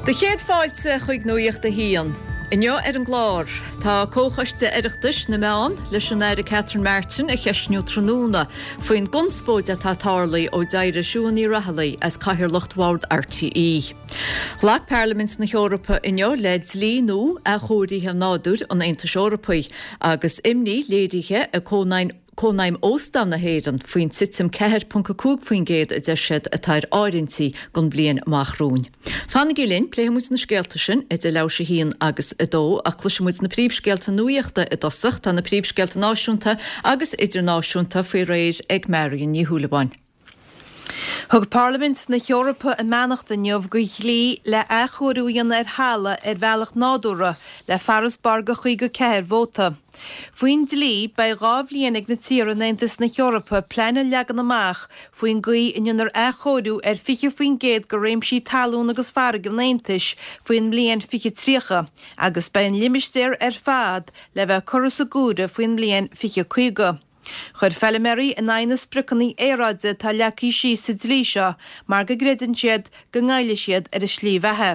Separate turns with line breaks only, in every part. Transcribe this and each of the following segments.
Do chéad fáilte chuig Nuacht a hAon. Inniu ar an gclár, tá Comhchoiste Oireachtais na Meán leis an Aire Catherine Martin a cheistniú tráthnóna faoin gconspóid atá tarlaithe ó d'éirigh Siún Ní Raghallaigh as cathaoirleacht Bhord RTÉ. Ghlac Parlaimint na hEorpa inniu le dlí nua athchóirithe nádúir an Aontais Eorpaigh agus imní léirithe ag Cónaidhm Óstán na hÉireann faoin titim 4.5% a deir siad atá ar áirithintí don bhliain amach romhainn. Fanaigí linn, pléifidh muid na scéalta sin idir leathuair théis a haon agus a dó ach cloisfidh muid na príomhscéalta nuachta i dtosach. Tá na príomhscéalta náisiúnta agus idirnáisiúnta faoi réir ag Marion Ní Shúilleabháin.
Thug Parlaimint na hEorpa a mbeannacht inniu do dhlí le athchóiriú a dhéanamh ar thalamh ar bhealach nádúrtha le farasbarr de 54 vóta. Faoin dlí, beidh 2 bhliain ag na tíortha in Aontas na hEorpa plean a leagan amach faoin gcaoi a ndéanfar athchóiriú ar 20% de réimsí talún agus farraige an Aontais faoin mbliain 2030 agus beidh an limistéar ar fad le bheith curtha sa gcumhra faoin mbliain 2050. Chuir feilméaraí in aghaidh na spriocanna aeráide atá leagtha síos sa dlí seo mar go gcreideann siad go ngoillfidh siad ar a slí bheatha.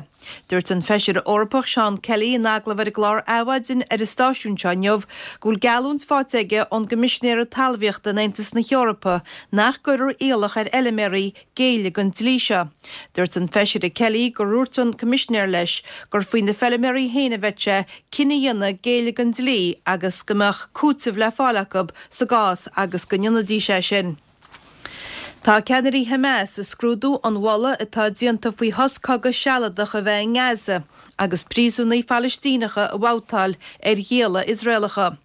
Dúirt an Feisire Eorpach Seán Kelly in agallamh ar an gclár Adhmhaidin ar an stáisiún seo inniu go bhfuil geallúint faighte aige ón gCoimisinéara Talmhaíochta in Aontas na hEorpa nach gcuirfear iallach ar fheilméaraí géilleadh don dlí seo. Dúirt an Feisire Kelly gur dhúirt an Coimisinéir leis gur faoi na feilméaraí féin a bheadh sé cinneadh a dhéanamh géilleadh don dlí agus go mbeadh cúiteamh le fáil acu sa gcás agus go ndéanfaidís é sin. Tá ceannairí Hamas ag scrúdú an mholadh atá déanta faoi shos cogaidh sealadach a bheith i nGaza agus príosúnaigh Phalaistíneacha a bhabhtáil ar ghialla Iosraelacha.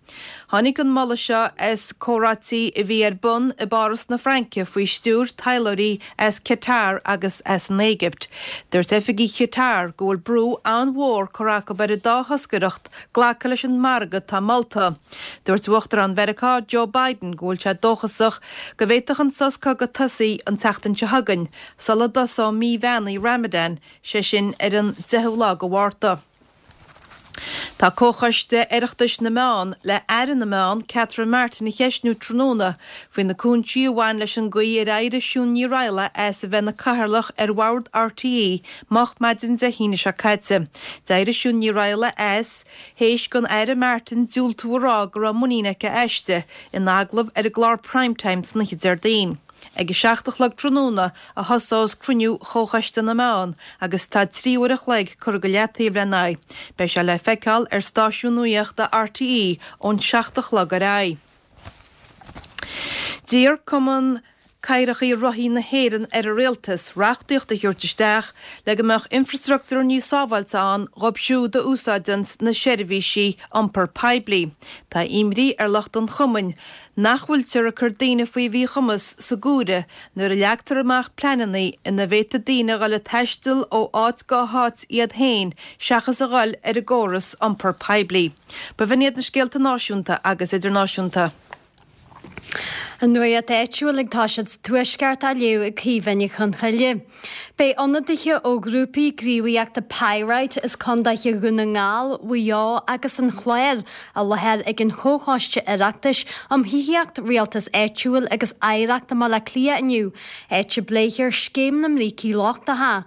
Tháinig an moladh seo as comhráití a bhí ar bun i bPáras na Fraince faoi stiúir taidhleoirí as Qatar agus as an Éigipt. Dúirt oifigigh Qatar go bhfuil brú an-mhór curtha acu ar an dá thoscaireacht glacadh leis an margadh atá molta. Dúirt Uachtarán Mheiriceá Joe Biden go bhfuil sé dóchasach go bhféadfadh an sos cogaidh tosaí an tseachtain seo chugainn sula dtosóidh mí bheannaithe Ramadan, sé sin ar an 10ú lá de Mhárta. Tá Comhchoiste Oireachtais na Meán le Aire na Meán, Catherine Martin a cheistniú tráthnóna faoi na cúinsí a bhain leis an gcaoi ar éirigh Siún Ní Raghallaigh as a bheith ina Cathaoirleach ar Bhord RTÉ moch maidin Dé hAoine seo caite. D'éirigh Siún Ní Raghallaigh as théis don Aire Martin diúltú a rá go raibh muinín aici aisti in agallamh ar an gclár Prime Time san oíche Déardaoin. Ag a 7 a chlog tráthnóna a thosós cruinniú Chomhchoiste na Meán agus tá 3 uair a chloig curtha go leataobh lena aghaidh. Beidh sé le feiceáil ar stáisiún nuachta RTÉ ón 7 a chlog ar aghaidh. D'iarr Cumann Cathracha Rothaí na hÉireann ar an Rialtas reachtaíocht a thabhairt isteach le go mbeadh infreastruchtúr níos sábháilte ann dhóibh siúd a úsáideanns na seirbhísí iompar poiblí. Tá imní ar lucht an chumainn nach bhfuiltear ag cur daoine faoi mhíchumas sa gcomhaireamh nuair a leagtar amach pleananna ina bhféadfaidh daoine a dhul ag taisteal ó áit go háit iad féin seachas a dhul ar an gcóras iompar poiblí. B'in iad na scéalta náisiúnta agus idirnáisiúnta.
An nuacht áitiúil ag toiseacht sa Tuaisceart á léamh ag Caoimhe Ní Chonchoille. Beidh ionadaithe ó ghrúpaí gníomhaíochta Pyrite as condaetha Dhún na nGall, Mhaigh Eo agus an Chláir i láthair ag an Chomhchoiste Oireachtais um Thithíocht, Rialtas Áitiúil agus Oidhreacht i mBaile Átha Cliath inniu, áit a bpléifear Scéim na mBrící Lochtacha.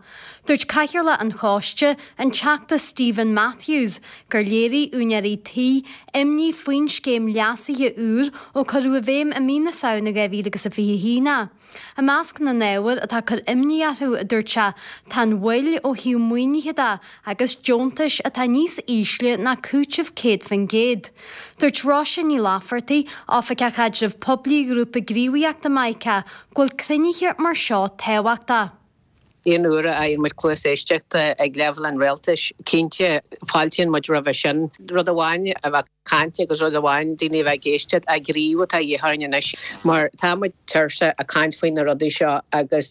Dúirt Cathaoirleach an Choiste, an Teachta Steven Matthews, gur léirigh úinéirí tí imní faoin scéim leasaithe úr ó cuireadh i bhfeidhm i mí na Samhna 2021 é. I measc na n-ábhar atá ag cur imní orthu, a dúirt sé, tá an mhoill ó thaobh maoinithe de agus deontais atá níos ísle ná cúiteamh 100%. Dúirt Róise Ní Laifeartaigh, Oifigeach Caidrimh Poiblí Ghrúpa Gníomhaíochta Mica, go bhfuil cruinnithe mar seo tábhachtach.
Aon uair a fhaigheann muid cluas éisteachta ag leibhéal an rialtais, cinnte, fáiltíonn muid roimhe sin. Rud amháin a bheith ag caint agus rud amháin daoine a bheith ag éisteacht, ach gníomh atá de dhíth orainn anois mar tá muid tuirseach ag caint faoi na rudaí seo agus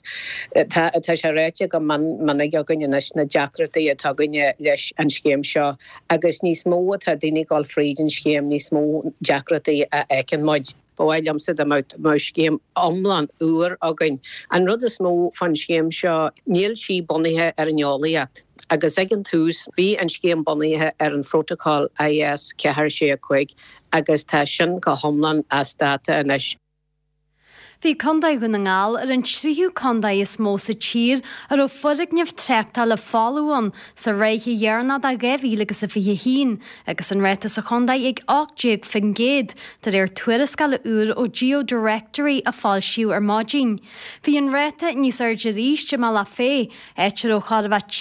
tá tá sé ráite go mion minic againn anois na deacrachtaí atá againne leis an scéim seo agus níos mó atá daoine ag dul fríd an scéim níos mó deacrachtaí a fheiceann muid. Ba mhaith liomsa dá mbeadh scéim iomlán úr againn. An rud is mó fán scéim seo, níl sí bunaithe ar an eolaíocht. Agus ag an tús, bhí an scéim bunaithe ar an phrótacal IS 4 6 5 agus tá sin go hiomlán as dáta anois.
Bhí Contae Dhún na nGall ar an tríú contae is mó sa tír a raibh foirgneamh tráchtála folamh ann sa ráithe dheireanach de 2021 agus an ráta sa chontae ag 18% de réir tuarascála úr ó GeoDirectory a foilsíodh ar maidin. Bhí an ráta níos airde arís i mBealach Féich, áit a raibh chóir a bheith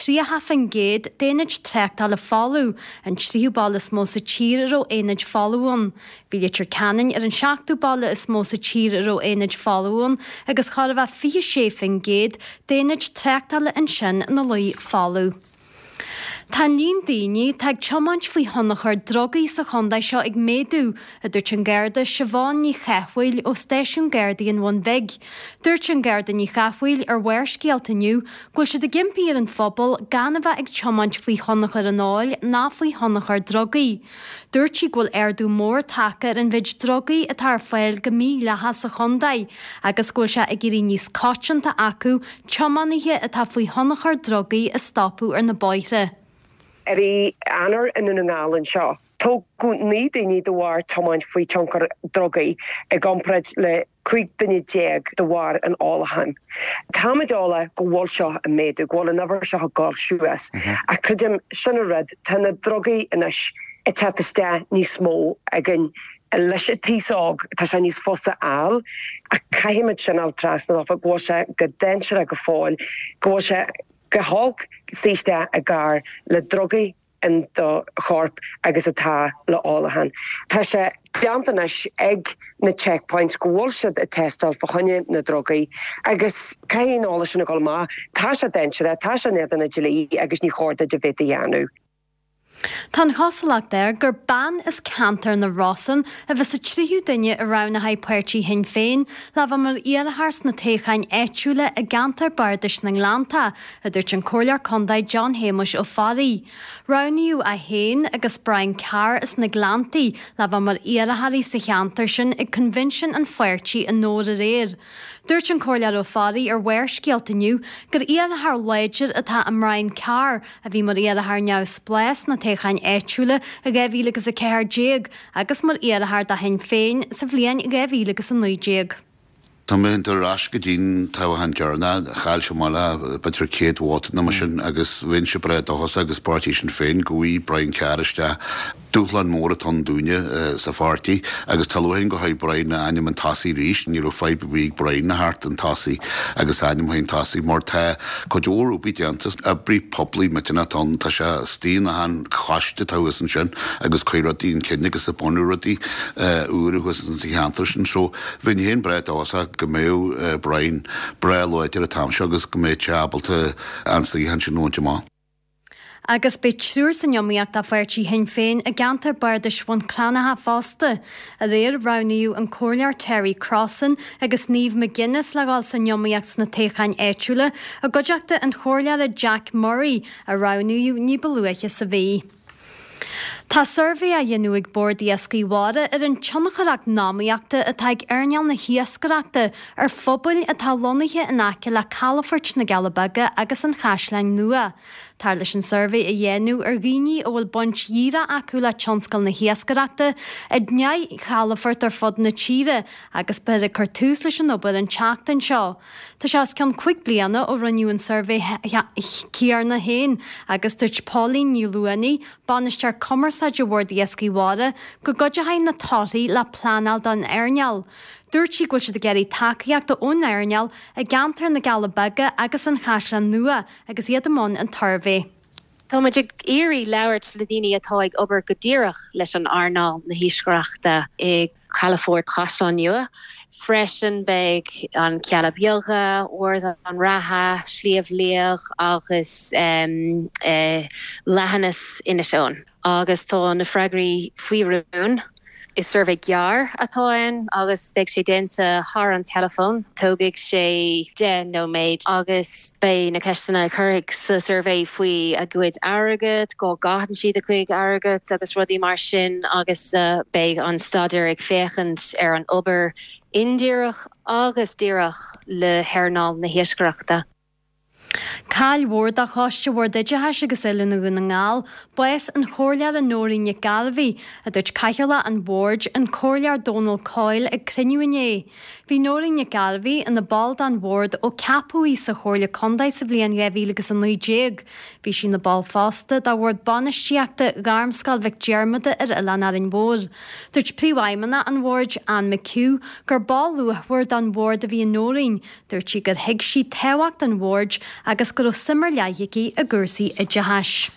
30% d'aonaid tráchtála folamh, an tríú baile is mó sa tír a raibh aonaid folamh ann. Bhí Leitir Ceanainn ar an seachtú baile is mó sa tír a raibh aonaid folamh ann agus chóir a bheith 26% d'aonaid tráchtála ansin ina luí folamh. Tá an líon daoine atá ag tiomáint faoi thionchar drugaí sa chontae seo ag méadú, a dúirt an Garda Siobhán Ní Chathmhaoil ó Stáisiún Gardaí an Bhun Bhig. Dúirt an Garda Ní Chathmhaoil ar Bharrscéalta inniu go bhfuil siad ag impí ar an phobal gan a bheith ag tiomáint faoi thionchar an óil ná faoi thionchar drugaí. Dúirt sí go bhfuil ardú mór tagtha ar an mhéid drugaí atá ar fáil go mídhleathach sa chontae agus go bhfuil sé ag éirí níos coitianta acu tiománaithe atá faoi thionchar drugaí a stopadh ar na bóithre.
I rith Eanáir i nDún na nGall anseo, tógadh 9 daoine de bharr tiomáint faoi tionchar drugaí i gcomparáid le 15 duine de bharr an ólacháin. Táimid eolach go bhfuil seo ag méadú, go bhfuil an uimhir seo ag dul suas. Ach creidim, sin an rud, tá na drugaí anois ag teacht isteach níos mó againn leis an t-aos óg, tá sé níos fusa a fháil. Ach caithfimid sin a fháil trasna dófa, go bhfuil sé go dainséarach go fóill, go bhfuil sé go holc suí isteach i gcarr le drugaí. in do chorp agus atá le ólachán. Tá sé déanta anois ag na checkpoints go bhfuil siad ag tástáil fá choinne na drugaí agus caithfidh an eolas sin a dhul amach. Tá sé dainséarach, tá sé in éadan an dlí agus ní chóir duit a bheith á dhéanamh.
Tá an chosúlacht air gur bean as ceantar na Rosann a bheas sa tríú duine a roghnóidh páirtí Shinn Féin le bheith mar iarrthóir sna toghcháin áitiúla i gceantar bardais na nGleannta, a dúirt an Comhairleoir Contae John Shéamuis Ó Fearraigh. Roghnaíodh é féin agus Brian Carr as na Gleanntaí le bheith mar iarrthóirí sa cheantar sin ag coinbhinsiún an pháirtí i nDobhar aréir. Dúirt an Comhairleoir Ó Fearraigh ar Bharrscéalta inniu gur iarrthóir láidir atá i mBrian Carr a bhí mar iarrthóir neamhspleách sna toghcháin áitiúla i 2014 agus mar iarrthóir do Shinn Féin sa bhliain 2019.
Tá mé ag dul ar ais go dtí'n toghchán deireanach, chaill sé amach le b'fhéidir 100 vóta nó mar sin agus bheinnse breá dóchasach agus páirtí Sinn Féin go bhfaighidh Brian Carr isteach. Dúshlán mór atá ann dúinne sa pháirtí agus tá lúcháir orainn go bhfaighidh Brian a ainm chun tosaigh arís. Ní raibh fadhb ar bith ag Brian a theacht chun tosaigh agus a ainm chun tosaigh mar tá cuid mhór obair déanta, oibrí poiblí millteanach atá ann, tá sé istigh in achan choiste atá thuas ansin agus cuir rudaí chun cinn agus ag bunú rudaí úra thuas sa cheantar sin. So, Bheinn féin breá dóchasach go mbeadh Brian breá láidir an t-am seo agus go mbeadh sé ábalta an suíochán sin a bhaint amach.
Agus beidh triúr san iomaíocht do pháirtí Shinn Féin i gceantar bardais Bhun Cranncha fosta. Aréir roghnaíodh an Comhairleoir Terry Crossan agus Niamh McGuinness le dhul san iomaíocht sna toghcháin áitiúla i gcuideachta an Chomhairleora Jack Murray a roghnaíodh ní ba luaithe sa mhí. Tá suirbhé á dhéanamh ag Bord Iascaigh Mhara ar an tionchar eacnamaíochta atá ag earnáil na hiascaireachta ar phobail atá lonnaithe in aice le calafoirt na gCealla Beaga agus an Chaisleáin Nua. Táthar leis an suirbhé a dhéanamh ar dhaoine a bhfuil baint dhíreach acu le tionscal na hiascaireachta i ndeich gcalafort ar fud na tíre agus beifear ag cur tús leis an obair an tseachtain seo. Tá sé os cionn 5 bliana ó rinneadh an suirbhé céanna féin agus dúirt Pauline Ní Luanaigh, Bainisteoir Cumarsáide Bhord Iascaigh Mhara, go gcuideoidh na torthaí le pleanáil don earnáil. Dúirt sí go bhfuil siad ag iarraidh tacaíochta ón earnáil i gceantar na gCealla Beaga agus an Chaisleáin Nua agus iad i mbun an tsuirbhé.
Tá muid ag iarraidh labhairt le daoine atá ag obair go díreach leis an earnáil na hiascaireachta i gCalafort Chaisleán Nua. Freisin beidh an Cealla Beaga, Ard an Rátha, Sliabh Liag agus Leithinis Inis Eoghain. Agus tá na freagraí faoi rún. Is suirbhé gearr atá ann agus beidh sé déanta thar an teileafón. Tógfaidh sé 10 nóiméad agus beidh na ceisteanna a cuirfidh sa suirbhé faoi a gcuid airgead, cá gcaitheann siad a gcuid airgead agus rudaí mar sin agus beidh an staidéar ag féachaint ar an obair indíreach agus díreach le hearnáil na hiascaireachta.
Caill mhór do Choiste Bhord Oideachais agus Oiliúna Dhún na nGall bás an Chomhairleora Nóirín Nic Gairbhí, a dúirt Cathaoirleach an Bhoird, an Comhairleoir Dónal Coyle ag cruinniú inné. Bhí Nóirín Nic Gairbhí ina ball den Bhord ó ceapadh í sa Chomhairle Contae sa bhliain 2019. Bhí sí ina ball fosta de Bhord Bainistíochta Ghairmscoil Mhic Diarmada ar Oileán Árainn Mhór. Dúirt Príomhfheidhmeannach an Bhoird, Anne McHugh, gur ball luachmhar den Bhord a bhí i Nóirín. Dúirt sí gur thuig sí tábhacht an bhoird agus go raibh suim ar leith aici i gcúrsaí oideachais.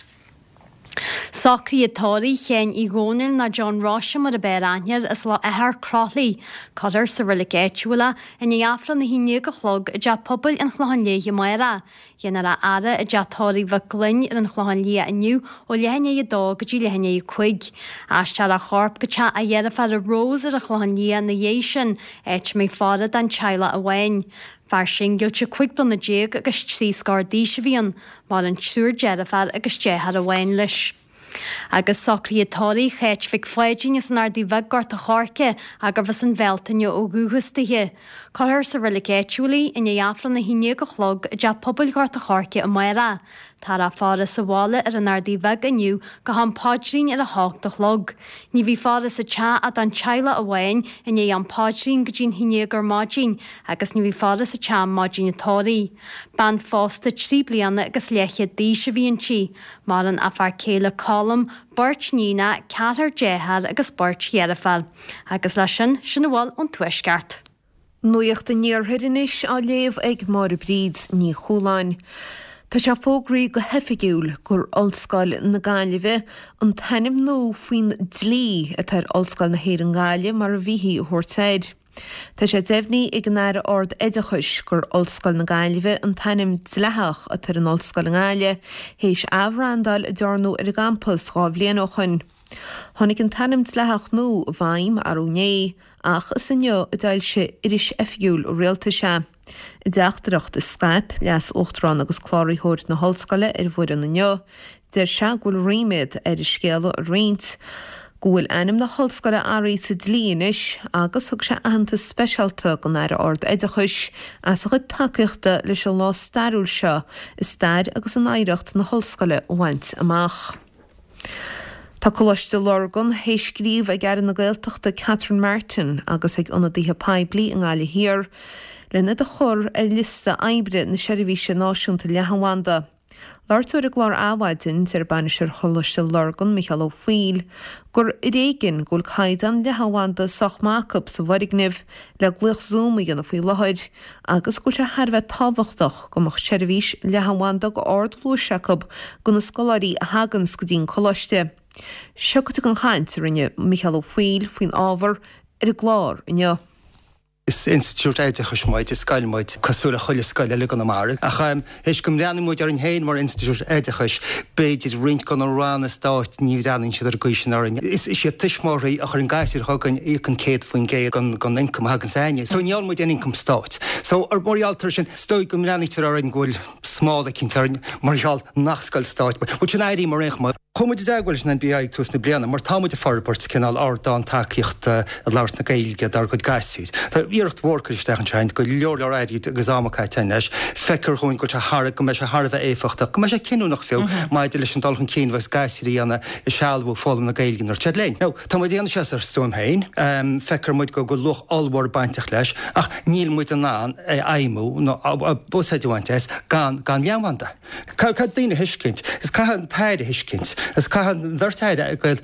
Socruithe tórraimh Sheáin Uí Dhónaill nó John Roise mar ab fhearr aithne air as Loch Eachach Croithlí. Cuirfear sa reilig áitiúil é i ndiaidh Aifreann a 11 a chlog i dTeach Pobail an Chlocháin Léith amárach. Déanfar a fhaire i dteach tórraimh Mhic Gloinn ar an Chlochán Liath inniu ó leath i ndiaidh 2 go dtí leath i ndiaidh 5. Aistreofar a chorp go teach a dheirféara Rose ar an Chlochán Liath ina dhiaidh sin, áit a mbeidh faire don teaghlach amháin. Fear singilte 15 bliana agus trí scór d'aois a bhí ann. Maireann triúr deirféar agus deartháir amháin leis. Agus socruithe tórraimh Cháit Mhic Pháidín as an Ardaidh Bheag, Gort a' Choirce, gurbh as an Bhealtaine ó dhúchas dithe. Cuirfear sa reilig áitiúil í i ndiaidh Aifreann 11 a chlog i dTeach Pobail Ghort a' Choirce amárach. Táthar á faire sa bhaile ar an Ardaidh Bheag inniu go ham paidrín ar a hocht a chlog. Ní bheidh faire sa teach ach don teaghlach amháin i ndiaidh am paidrín go dtí'n haon déag ar maidin agus ní bheidh faire sa teach maidin an tórraimh. Bean phósta trí bliana agus leathchéad d'aois a bhí inti. Maireann a fear céile Colm, beirt níonacha, ceathrar dearthár agus beirt dheirféar. Agus leis sin, sin a bhfuil ón Tuaisceart.
Nuacht an Iarthair anois á léamh ag Máire Bríd Ní Chualáin. Tá sé fógraithe go hoifigiúil gur Ollscoil na Gaillimhe an t-ainm nua faoin dlí atá ar Ollscoil na hÉireann Gaillimh mar a bhíthí a thabhairt air. Tá sé deimhnithe ag an Aire Ard-Oideachais gur Ollscoil na Gaillimhe an t-ainm dleathach atá ar an ollscoil i nGaillimh, théis athbhrandáil a dearnadh ar an gcampas 2 bhliain ó shoin. Tháinig an t-ainm dleathach nua i bhfeidhm arú inné, ach is inniu a d'fhoilsigh Iris Oifigiúil an Rialtais é. I dteachtaireacht a scaip Leas-Uachtarán agus Cláraitheoir na hOllscoile ar an bhfoireann inniu, deir sé go bhfuil ríméad air an scéala a roinnt go bhfuil ainm na hOllscoile athraithe sa dlí anois agus thug sé aitheantas speisialta don Aire Ard-Oideachais as a chuid tacaíochta leis an lá stairiúil seo i stair agus in oidhreacht na hOllscoile a bhaint amach. Tá Coláiste Lurgan théis scríobh ag Aire na Gaeltachta Catherine Martin agus ag ionadaithe poiblí i nGaillimh Thiar len iad a chur ar liosta oibre na Seirbhíse Náisiúnta Leathanbhanda. Labhairt dó ar an gclár Adhmhaidin, deir bainisteoir Choláiste Lurgan, Micheál Ó Foighil, gur ar éigean go bhfuil caighdeán leathanbhanda sách maith acu sa bhfoirgneamh le glaoch Zoom a dhéanamh faoi láthair agus go bhfuil sé thar a bheith tábhachtach go mbeadh seirbhís leathanbhanda go ardluais acu do na scoláirí a thaganns go dtí an coláiste. Seo cuid den chaint a rinne Micheál Ó Foighil faoin ábhar ar an gclár inniu.
Is institiúid oideachais muid, is scoil muid, cosúil le chuile scoil eile i gConamara. Ach théis go mbreathnaíonn muid orainn féin mar institiúid oideachais, b'fhéidir roinnt de na ranna stáit, ní bhreathnaíonn siad ar an gcaoi sin orainn. Is iad tuismitheoirí a chuireann gasúir chugainn a íocann 100% den ioncam a thagann againne. So ní fhálann muid aon ioncam stáit. So mar gheall air sin, is dóigh go mbreathnaítear orainn go bhfuil smál eicínt orainn mar gheall nach scoil stáit muid. Bhuel sin éirí mar aon chuma. Chuaigh muid i dteagmháil leis an NBI ag tús na bliana mar tá muid ag forbairt cineál ardán tacaíochta i labhairt na Gaeilge dár gcuid gasúir. Tá iarracht mhór curtha isteach anseo, go leor leor airgid agus ama caite againn leis. Feictear dhúinn go bhfuil sé thar, go mbeidh sé thar a bheith éifeachtach, go mbeidh sé cinniúnach fiú maidir leis an dul chun cinn a bheas gasúir a dhéanamh i sealbhú foghlaim na Gaeilge nuair atá siad linn. Now, tá muid ag déanamh seo as ár stuaim féin, feictear muid go bhfuil luach ollmhór bainteach leis ach níl muid in ann é a fheidhmiú nó úsáid a bhaint as gan gan leathanbhanda. Caithfidh daoine a thuiscint, is caithfidh an tAire a thuiscint, is caithfidh an bheirt Aire a gael,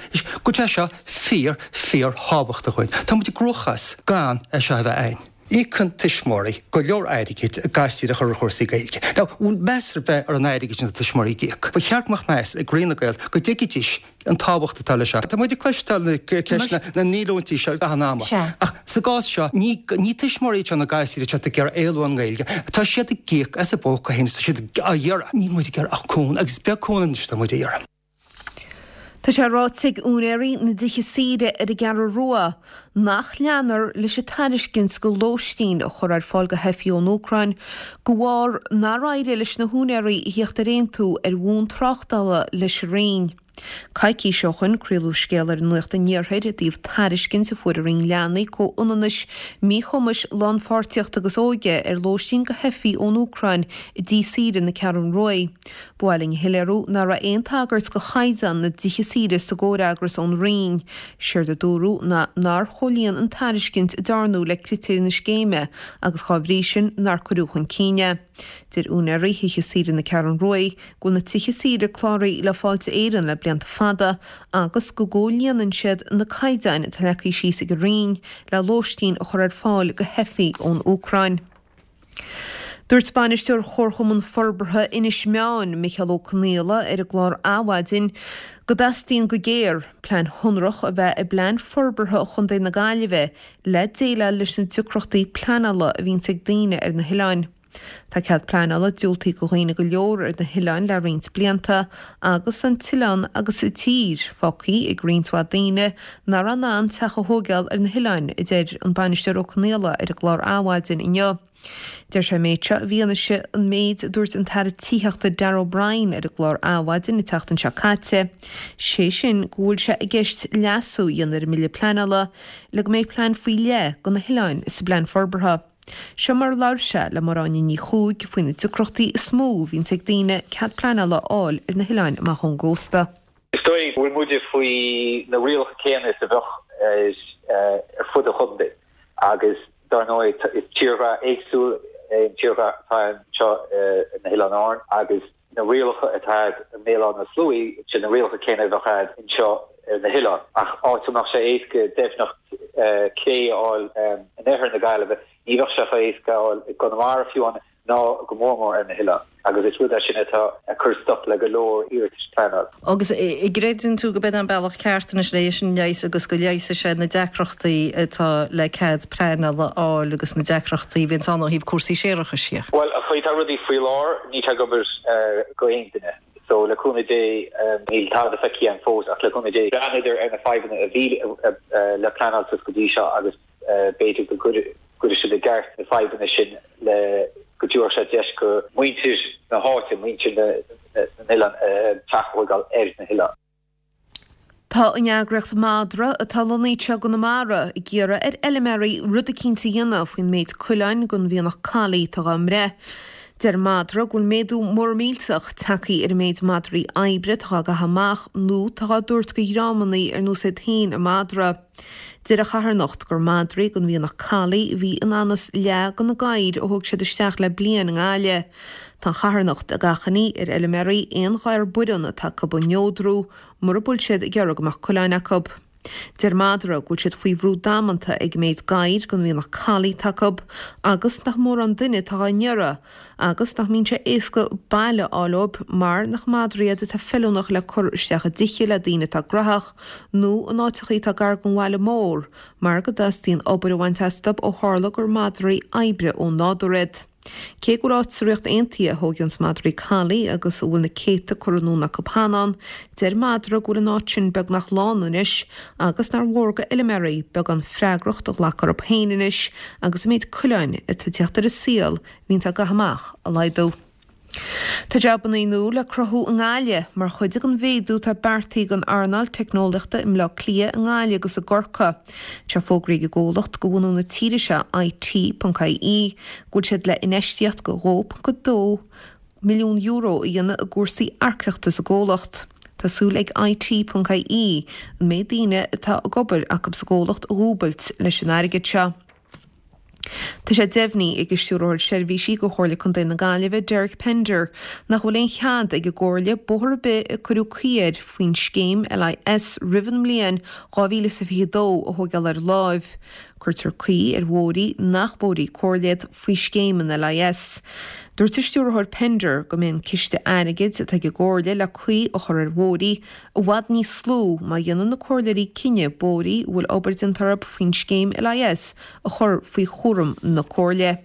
go bhfuil sé seo fíor, fíor thábhachtach dhúinn. Tá muid i gcruachás gan é seo a bheith againn. Íocann tuismitheoirí go leor airgid a gasúir a chur ar chúrsaí Gaeilge. Now, bhfuil meas ar bith ar an airgead sin atá tuismitheoirí ag íoc? Ba cheart go mbeadh meas ag Roinn na Gael go dtuigfidís an tábhacht atá leis seo. Tá muid ag cloisteáil na ceisteanna na ndíolúintí seo gach an ama. Ach sa gcás seo, ní ní tuismitheoirí iad seo na gasúir atá ag iarraidh éalú ón nGaeilge. Tá siad ag íoc as a bpóca féin is tá siad á iarraidh. Níl muid ag iarraidh ach cúnamh agus is beag cúnamh anois atá muid a iarraidh.
Tá sé ráite ag úinéirí na dtithe saoire ar an gCeathrú Rua nach leanfar leis an tairiscint go lóistín a chur ar fáil go theifigh ón Úcráin de bharr nár éirigh leis na húinéirí a theacht ar aontú ar bhonn tráchtála leis an Roinn. Coicís ó shoin craoladh scéal ar Nuacht an Iarthair i dtaobh tairiscint a fuair an Roinn Leanaí, Comhionannais, Míchumais, Lánpháirtíochta agus Óige ar lóistín go theifigh ón Úcráin i dtí saoire na Ceathrún Ruaidh. Ba mhaith linn a shoiléiriú nach raibh aon tagairt go chaighdeán na dtithe saoire sa gcomhfhreagras ón Roinn. Séard a dúradh ná nár chomhlíon an tairiscint a dearnadh le critéir na scéime agus dhá bhrí sin nár cuireadh chun cinn é. Deir úinéirí thithe saoire na Ceathrún Ruaidh go bhfuil na tithe saoire cláraithe le Fáilte Éireann le blianta fada agus go gcomhlíonann siad na caighdeáin atá leagtha síos ag an Roinn le lóistín a chur ar fáil go theifigh ón Úcráin. Dúirt Bainisteoir Chomharchumann Forbartha Inis Meáin, Micheál Ó Conaola, ar an gclár Adhmhaidin go dteastaíonn go géar plean shonrach a bheith i bPlean Forbartha Chontae na Gaillimhe le déileáil leis na deacrachtaí pleanála a bhíonns ag daoine ar na hoileáin. Tá cead pleanála diúltaithe go dhaoine go leor ar na hoileáin le roinnt blianta agus an t-oileán agus an tír fágtha ag roinnt mhaith daoine nach raibh in ann teach a thóigeáil ar na hoileáin, a deir an Bainisteoir Ó Conaola ar an gclár Adhmhaidin inniu. Deir sé an méid seo i bhfianaise an méid a dúirt an tAire Tithíochta Darragh O'Brien ar an gclár Adhmhaidin an tseachtain seo caite, sé sin go bhfuil sé i gceist leasú a dhéanamh ar an mBille Pleanála le go mbeidh plean faoi leith do na hoileáin sa bplean forbartha. Seo mar a labhair sé le Máire Áine Ní Chuaig faoi na deacrachtaí is mó a bhíonns ag daoine cead pleanála a fháil ar na hoileáin amach ón gcósta.
Is dóigh go bhfuil muide faoi na rialacha céanna is a bheadh ar fud an chontae agus dar ndóigh is tírdhreach éagsúil é an tírdhreach atá anseo ar na hOileáin Árann agus na rialacha atá a'd i mBéal Átha na Sluaighe, sin na rialacha céanna a bheadh a'd anseo ar na hoileáin. Ach áit a mbeadh sé éasca deimhneacht clé a fháil in oirthear na Gaillimhe, ní bheadh sé chomh héasca a fháil i gConamara fiú amháin ná go mór mór ar na hoileáin. Agus is rud é sin atá ag cur stop le go leor iarratais pleanála.
Agus an gcreideann tú go b'in an bealach ceart anois le é sin a leigheas agus go leigheasfaidh sé na deacrachtaí atá le cead pleanála a fháil agus na deacrachtaí a bhíonns ann ó thaobh cúrsaí séarachais dhe?
Bhuel, an chaoi atá rudaí faoi láthair, níl sé ag obair go aon duine. So, le cúnamh Dé, níl tada feicthe againn fós ach le cúnamh Dé, breathnaíodar ar na fadhbanna a bhí le pleanáil suas go dtí seo agus b'fhéidir go gcuirfidh siad i gceart na fadhbanna sin le go dtabharfadh sé deis go muintir na háite, muintir na n-oileán teach a thóigeáil ar na hoileáin.
Tá an eagraíocht Madra, atá lonnaithe anseo i gConamara, ag iarraidh ar fheilméaraí rud eicínt a dhéanamh faoin méid coileáin den mhianach collie atá dhá mbreith. Deir Madra go bhfuil méadú mór millteach tagtha ar an méid madraí oibre atá dhá gcaitheamh amach nó atá dhá dtabhairt go dhreamannaí ar nós iad féin an madra. Deir an charthanacht gur madraí den mhianach collie a bhí in anas leath de na gadhair a thóg siad isteach le bliain i nGaillimh. Tá an charthanacht ag achainí ar fheilméaraí aon ghadhar baireann atá acu a neodrú mura bhfuil siad ag iarraidh go mbeadh coileáin acu. Deir Madra go bhfuil siad faoi bhrú damanta ag an méid gadhair den mhianach collie atá acu agus nach mórán duine atá á n-iarraidh agus nach mbíonn sé éasca baile a fháil dóibh mar nach madraí iad atá feiliúnach le cur isteach i dtithe le daoine atá graitheach nó in áiteachaí atá gar don bhaile mór mar go dteastaíonn obair a bhaint astu ó tharla gur madraí oibre ó nádúr iad. Cé go bhfuil áit sa Ríocht Aontaithe a thóigeanns madraí collie agus a bhfuil na céadta curtha anonn acu cheana ann, deir Madra go bhfuil an áit sin beagnach lán anois agus nár mhór go fheilméaraí beagán freagracht a ghlacadh orthu féin anois agus an méid coileáin atá ag teacht ar an saol a bhíonns á gcaitheamh amach a laghdú. Tá jabannaí nua le cruthú i nGaillimh mar chuid den mhéadú atá beartaithe don earnáil teicneolaíochta i mBleá Cliath, i nGaillimh agus i gCorcaigh. Tá fógraithe ag an gcomhlacht de bhunadh na tíre seo, IT.ie, go bhfuil siad le infheistíocht de €2.2 milliún a dhéanamh i gcúrsaí earcaíochta sa gcomhlacht. Tá súil ag IT.ie an méid daoine atá ag obair acu sa gcomhlacht a dhúbailt leis an airgead seo. Tá sé deimhnithe ag an Stiúrthóir Seirbhísí do Chomhairle Contae na Gaillimhe, Derek Pender, nach bhfuil aon chead ag an gComhairle bóthar ar bith a cuireadh caoi air faoin scéim LIS roimh an mbliain 2022 a thóigeáil ar láimh. Cuirtear caoi ar bhóithrí nach bóithrí comhairle iad faoi scéim an LIS. Dúirt an Stiúrthóir Pender go mbeidh an ciste airgid atá ag an gComhairle le caoi a chur ar bhóithrí i bhfad níos lú má dhéanann na comhairleoirí cinneadh bóithrí a bhfuil obair déanta orthu faoin scéim LIS a chur faoi chúram na Comhairle.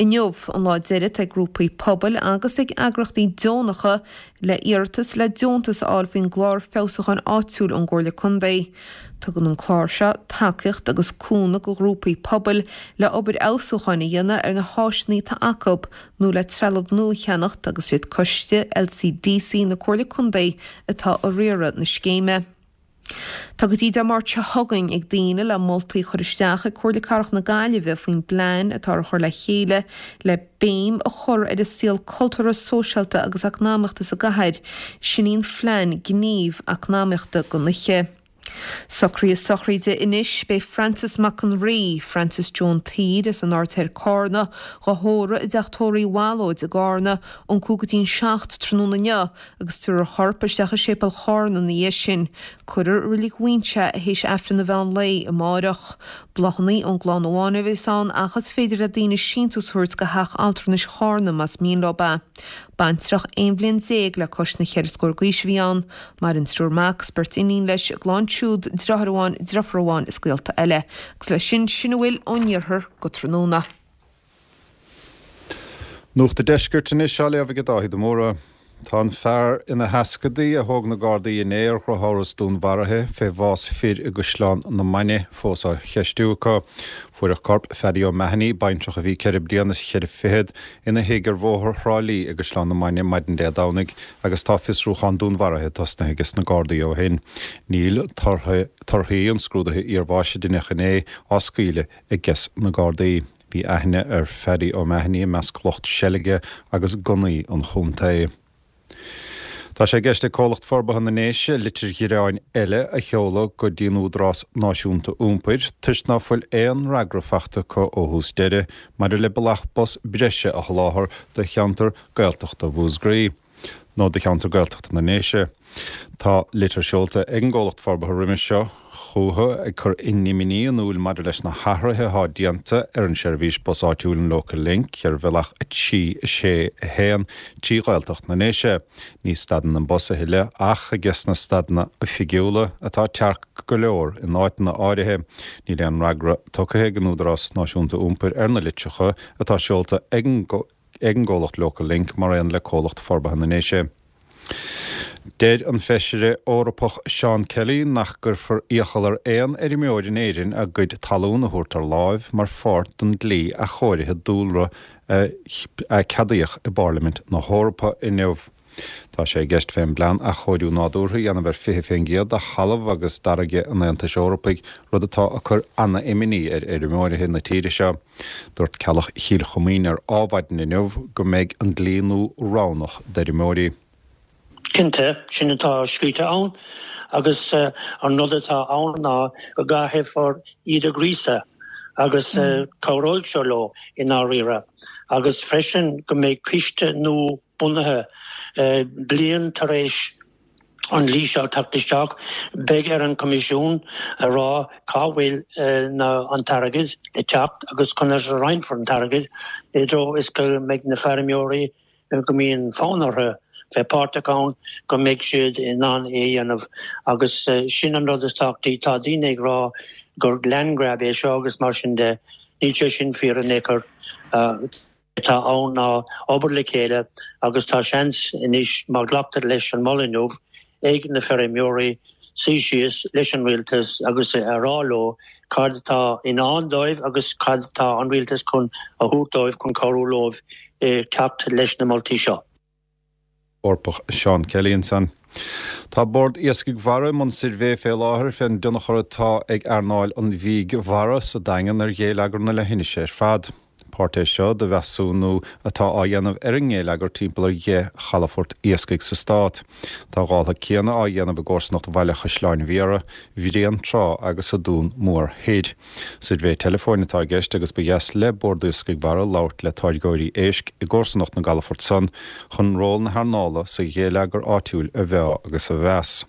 Inniu an lá deiridh ag grúpaí pobail agus ag eagraíochtaí deonacha le iarratas le deontas a fháil faoin gClár Feabhsúcháin Áitiúil ón gComhairle Contae. Tugann an clár seo tacaíocht agus cúnamh go ghrúpaí pobail le obair fheabhsúcháin a dhéanamh ar na háiseanna atá acu nó le trealamh nua a cheannacht agus siad Coiste LCDC na Comhairle Contae atá ag riaradh na scéime. Tá go dtí Dé Máirt seo chugainn ag daoine le moltaí a chur isteach ag Comhairle Cathrach na Gaillimhe faoin bplean atá á chur le chéile le béim a chur ar an saol cultúrtha, sóisialta agus eacnamaíochta sa gcathair. Sin í an phlean gníomh eacnamaíochta don oíche. Socruithe sochraide anois, beidh Francis Mac an Rí, Francis Joan tSaoir as an Aird Thoir Cárna, dhá thórramh i dTeach Tórraimh Uí Bhallóid i gCárna, ón 5 go dtí'n 7 tráthnóna inniu agus tabharfar a chorp isteach i Séipéal Chárna ina dhiaidh sin. Cuirfear i Reilig Mhuinseo é théis Aifreann an mheán lae amáireach. Bláthanna ón gclann amháin a bheas ann ach is féidir le daoine síntiús a thabhairt go Theach Altranais Chárna más mian leo é. Baintreach 11 bhliain le cois na cheithre scór d'aois a bhí ann. Maireann triúr mac is beirt iníon leis, a gclann siúd, driotháir amháin, driofúr amháin is gaolta eile. Agus leis sin, sin a bhfuil ón iarthar go tráthnóna.
Nuacht an Deiscirt anois á léamh ag Dáithí de Mórdha. Tá an fear ina sheascadaí a thóg na Gardaí inné ar dhrochamhras dúnmharaithe fé bhás fir i gCaisleán na Mainge fós á cheistiú acu. Fuaireadh corp Phaddy O'Mahony, baintreach a bhí ceithre bliana is cheithre fichead, ina thigh ar Bhóthar Thrá Lí i gCaisleán na Mainge maidin Dé Domhnaigh agus tá fiosrúchán dúnmharaithe tosnaithe ages na Gardaí ó shin. Níl torthaí an scrúdaithe iarbháis a deineadh inné á scaoileadh ages na Gardaí. Bhí aithne ar Phaddy O'Mahony i measc lucht seilge agus gunnaí an chontae. Tá sé i gceist ag Comhlacht Forbartha na nDéise litir ghearáin eile a sheoladh go dtí an Údarás Náisiúnta Iompair toisc ná fuil aon fhreagra fachta acu ó thús deireadh maidir le bealach bus breise a sholáthar do cheantar Gaeltachta Mhúscraí. nó do cheantar Gaeltachta na nDéise. Tá litir seolta ag an gcomhlacht forbartha roimis seo chucu ag cur a n-imní in iúil maidir leis na hathruithe atá déanta ar an seirbhís bus áitiúil an Local Link ar bhealach 3, 6, 1 trí Ghaeltacht na nDéise. Ní stadann an bus a thuilleadh ach ages na stadanna oifigiúla atá tearc go leor in áiteanna áirithe. Níl aon fhreagra tugtha ag an Údarás Náisiúnta Iompair ar na litreacha atá seolta ag an ag an gcomhlacht Local Link mar aon le Comhlacht Forbartha na nDéise. Deir an Feisire Eorpach Seán Kelly nach gcuirfear iachall ar aon fheirmeoir in Éirinn a gcuid talún a thabhairt ar láimh mar pháirt den dlí athchóirithe dúlra a ceadaíodh i bPairlimint na hEorpa inniu. Tá sé i gceist fén bplean athchóiriú nádúrtha a dhéanamh ar 20% de thalamh agus d'fharraige an Aontais Eorpaigh, rud atá ag cur ana-imní ar fheirmeoirithe na tíre seo. Dúirt Ceallach Chill Choimín ar Adhmhaidin inniu go mbeidh an dlí nua roghnach d'fheirmeoirí.
Cinnte, sin atá scríte ann agus an rud atá ann ná go gcaithfear iad a ghríosadh agus cabhróidh seo leo i ndáiríre agus freisin go mbeidh coiste nua bunaithe. Bliain tar éis an dlí seo teacht isteach, beidh ar an Choimisiún a rá cá bhfuil an t-airgead le teacht agus conas a roinnfear an t-airgead i dtreo is go mbeidh na feirmeoirí go mbíonn fonn orthu bheith páirteach ann, go mbeidh siad in ann é a dhéanamh. Agus sin an rud is tábhachtaí. Tá daoine ag rá gur land grab é seo agus mar sin de. Níl sé sin fíor in aon chor. atá ann ná obair le chéile agus tá seans anois má ghlactar leis an moladh inniu ag na feirmeoirí suí síos leis an rialtas agus a rá leo cad atá i ndán dóibh agus cad atá an rialtas chun a thabhairt dóibh chun cabhrú leo teacht leis na moltaí seo.
Eorpach Seán Kelly ansan. Tá Bord Iascaigh Mhara i mbun suirbhé fé láthair fén dtionchar atá ag earnáil an bhídh mhara sa Daingean ar ghéilleagar na leithinise ar fad. Páirt é seo de mheasúnú atá á dhéanamh ar an ngéilleagar timpeall ar dheich chalafort iascaigh sa stát. Tá a dhála céanna á dhéanamh i gcomharsanacht Bhaile Chaisleáin Bhiara, Bhréantrá agus sa Dún Mór Thoir. Suirbhé teileafóin atá i gceist agus ba dheas le Bord Iascaigh Mhara labhairt le táirgeoirí éisc i gcomharsanacht na gcalafort san chun ról na hearnála sa ghéilleagar áitiúil a mheá agus a mheas.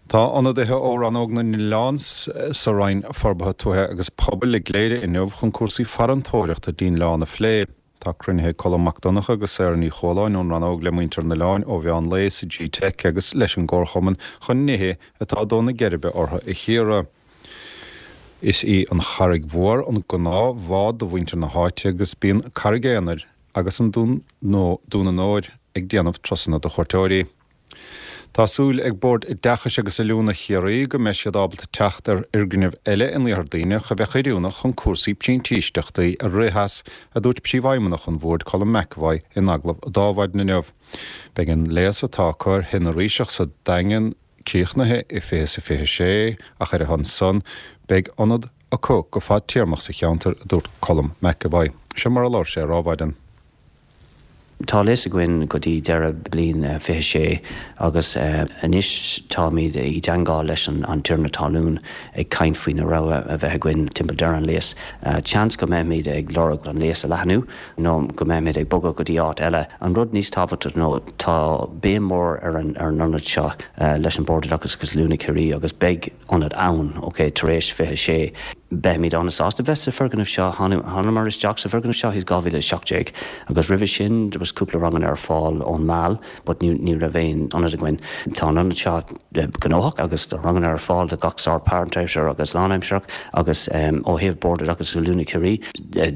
Tá ionadaithe ó Rannóg na nOileán sa Roinn Forbartha Tuaithe agus Pobail i gCléire inniu chun cúrsaí farantóireachta dtí'n oileán a phlé. Tá cruinnithe ag Colm Mac Donncha agus Sarah Ní Chualáin ón rannóg le muintir an oileáin ó mheán lae sa G-Teic agus leis an gComharchumann chun nithe atá ag dó na geirbe orthu a chíoradh. Is í an Charraig Mhór an gnáth-bhád do mhuintir na háite agus bíonn Carraig Aonair agus an Dún Dún an Óir ag déanamh turasanna do chuairteoirí. Tá súil ag Bord Oideachais agus Oiliúna Chiarraí go mbeidh siad ábalta teacht ar fhoirgneamh eile in Iarthar Duibhneach a bheadh oiriúnach chun cúrsaí printíseachtaí a rith as, a dúirt Príomhfheidhmeannach an Bhoird Colm McEvoy in agallamh d'Adhmhaidin inniu. Beidh an léas atá acu ar Thigh na Ríseach sa Daingean críochnaithe i 2026 ach ar a shon san beidh ionad acu go fadtéarmach sa cheantar, a dúirt Colm McEvoy. Seo mar a labhair sé ar Adhmhaidin.
Tá léas againn go dtí deireadh bliain 26 agus anois táimid i dteangmháil leis an tiarna talún ag caint faoi na rogha a bheith againn timpeall deireadh an léas. Seans go mbeimid ag lorg an léas a leathnú nó go mbeimid ag bogadh go dtí áit eile. An rud níos tábhachtaí ná tá béim mór ar an ionad seo leis an Bord Oideachais agus Oiliúna Chiarraí agus beidh ionad ann, ok, tar éis 26. Beimid an-sásta bheith sa foirgneamh seo. Thángamar isteach sa bhfoirgneamh seo i 2017 agus roimhe sin there was cúpla ranganna ar fáil ón Meal but ní ní raibh aon ionad againn. Tá an ionad seo gnóthach agus tá ranganna ar fáil do gach sórt páirtaimseartha agus lánaimsearach agus ó thaobh Bord Oideachais agus Oiliúna Chiarraí